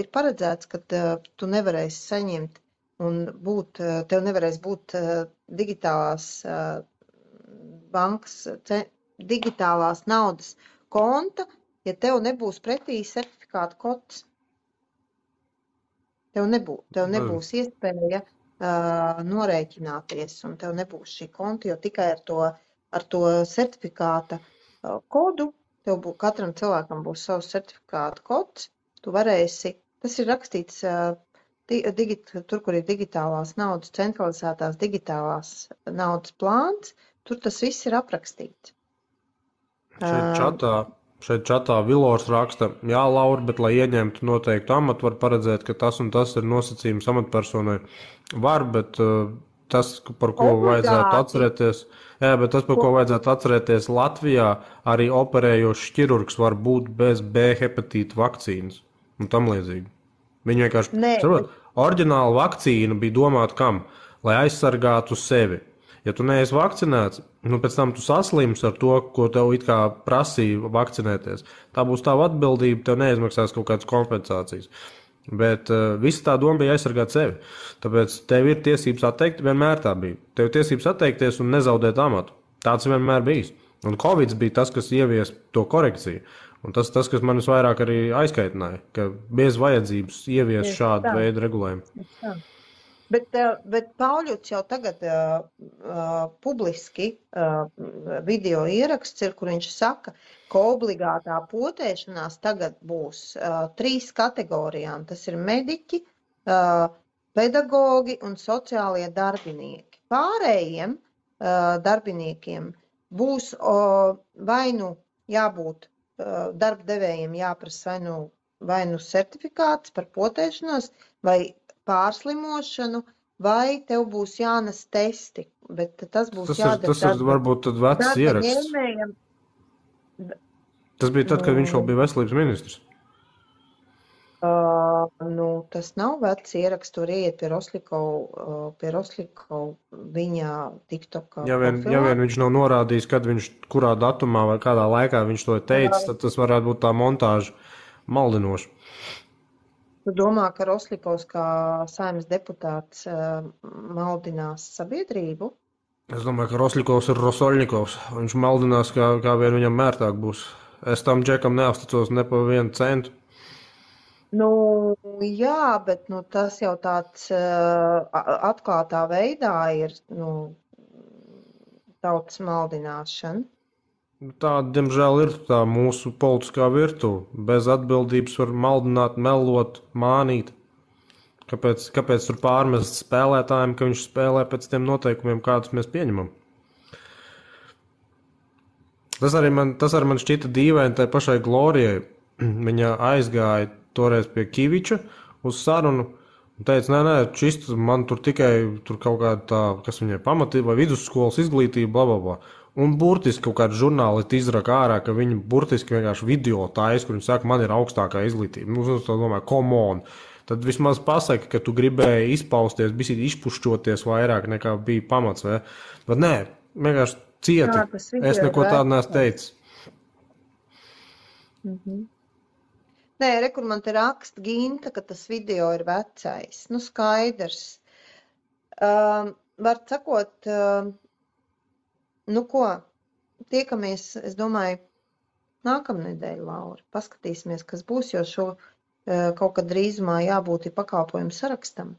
ir paredzēts, ka tu nevarēsi saņemt un tev nevarēs būt digitālās bankas, digitālās naudas konta, ja tev nebūs pretī certifikāta kods. Tev nebūs iespēja norēķināties, un tev nebūs šī konta, jo tikai ar to certifikāta kodu, katram cilvēkam būs savs certifikāta kods, tu varēsi, tas ir rakstīts tur, kur ir digitālās naudas, centralizētās digitālās naudas plāns, tur tas viss ir aprakstīts. Šeit čatā Vilors raksta, jā, Laura, bet, lai ieņemtu noteiktu amatu, var paredzēt, ka tas un tas ir nosacījums amatpersonai. Var, bet tas, par ko vajadzētu atcerēties, ko vajadzētu atcerēties Latvijā, arī operējošs ķirurgs var būt bez B hepatīta vakcīnas un tam līdzīgi. Viņi vienkārši, oriģināla vakcīna bija domāta kam? Lai aizsargātu sevi. Ja tu neesi vakcinēts, pēc tam tu saslimsi ar to, ko tev it kā prasīja vakcinēties. Tā būs tava atbildība, tev neizmaksās kaut kādas kompensācijas. Bet visa tā doma bija aizsargāt sevi. Tāpēc tev ir tiesības atteikt, vienmēr tā bija. Tev ir tiesības atteikties un nezaudēt amatu. Tāds vienmēr bijis. Un Covid bija tas, kas ievies to korekciju. Un tas, kas man visvairāk arī aizkaitināja, ka bez vajadzības ievies šādu veidu regulējumu. Bet Pauļuts jau tagad publiski video ieraksts ir, kur viņš saka, ka obligātā potēšanās tagad būs 3 kategorijām. Tas ir mediķi, pedagogi un sociālie darbinieki. Pārējiem darbiniekiem būs vai nu jābūt darba devējiem jāprasa vai nu certifikāts par potēšanos, vai pārslimošanu, vai tev būs jānes testi, bet tas būs jādara Tas ir varbūt tad vecs darba ieraksts. ņēmējam. Tas bija tad, kad viņš vēl bija veselības ministrs. Tas nav vecs ieraksts, tur iet pie Roslikova viņa TikTokā Ja vien viņš nav norādījis, kad viņš, kurā datumā vai kādā laikā viņš to ir teicis, tad tas varētu būt tā montāža maldinoša. Tu domā, ka Roslikovs kā Saeimas deputāts maldinās sabiedrību? Es domāju, ka Roslikovs ir Rosoļņikovs. Viņš maldinās, kā vien viņam mērtāk būs. Es tam džekam neuzticos ne pa 1 centu. Jā, bet tas jau tāds atklātā veidā ir tautas maldināšana. Tāda, diemžēl, ir tā mūsu politiskā virtuve. Bez atbildības var maldināt, melot, mānīt. Kāpēc tur pārmest spēlētājiem, ka viņš spēlē pēc tiem noteikumiem, kādus mēs pieņemam? Tas arī man šķita dīvaini tai pašai Glorijai. Viņa aizgāja toreiz pie Kiviča uz sarunu un teica, nē, šis man tur tikai kaut kāda tā, kas viņai pamatība vai vidusskolas izglītība, blablabla. Un burtiski kaut kāds žurnālisti izraka ārā, ka viņi burtiski vienkārši video taisa, kur viņi saka, man ir augstākā izglītība. Es domāju, come on. Tad vismaz pasaka, ka tu gribēji izpausties, bisīt izpušķoties vairāk nekā bija pamats, vai? Bet nē, vienkārši cieti. Es neko tādu neesmu teicis. Nē, kur man te raksta Ginta, ka tas video ir vecais. Skaidrs. Var sakot, ko, tiekamies, es domāju, nākamnedēļ, Laura. Paskatīsimies, kas būs, jo šo kaut kad drīzumā jābūt ir pakalpojumu sarakstam.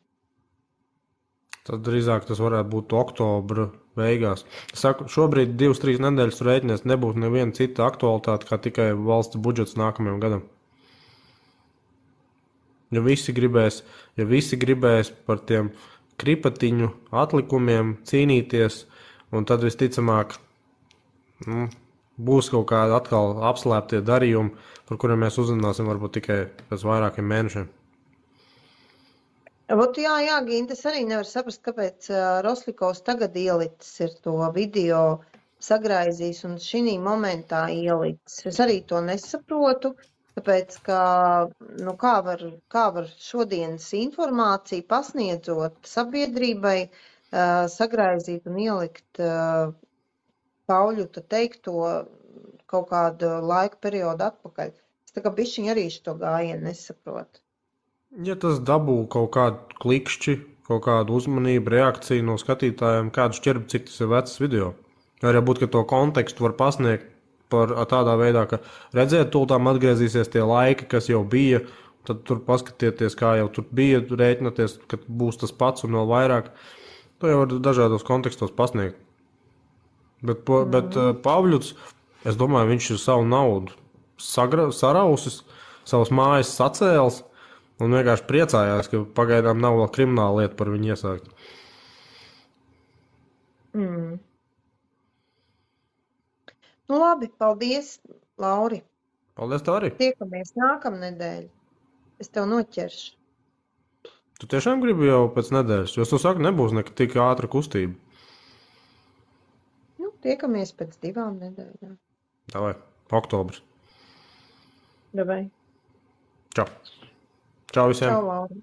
Tad drīzāk tas varētu būt oktobra beigās. Es saku, šobrīd 2-3 nedēļas rēķinies nebūs neviena cita aktualitāte, kā tikai valsts budžets nākamajam gadam. Ja visi gribēs par tiem kripatiņu atlikumiem cīnīties, un tad visticamāk būs kaut kādi atkal apslēptie darījumi, par kuriem mēs uzzināsim varbūt tikai pēc vairākiem mēnešiem. Jā, Ginta, es arī nevaru saprast, kāpēc Roslikovs tagad ielicis ir to video sagraizījis un šī momentā ielicis. Es arī to nesaprotu, tāpēc, ka kā var šodienas informāciju pasniedzot sabiedrībai sagraizīt un ielikt Pauļuta teikto kaut kādu laika periodu atpakaļ. Es tā kā bišķiņ arī šo gājienu nesaprotu. Ja tas dabū kaut kādu klikšķi, kaut kādu uzmanību, reakciju no skatītājiem, kādu šķirbi, cik tas ir vecs video. Arī būt, ka to kontekstu var pasniegt par tādā veidā, ka redzēt, tūltām atgriezīsies tie laiki, kas jau bija, tad tur paskatieties, kā jau tur bija, rēķināties, ka būs tas pats un vēl vairāk. To jau var dažādos kontekstos pasniegt. Bet Pavļuts, es domāju, viņš ir savu naudu sarausis, savas mājas sacēls un vienkārši priecājās, ka pagaidām nav vēl krimināla lieta par viņu iesākt. Labi, paldies, Lauri. Paldies tev arī. Tiekamies nākamnedēļ. Es tev noķeršu. Tu tiešām gribi jau pēc nedēļas, jo es to saku, nebūs tik ātra kustība. Tiekamies pēc 2 nedēļām. Davai, oktobrs. Davai. Čau. Čau visiem. Čau, Laura.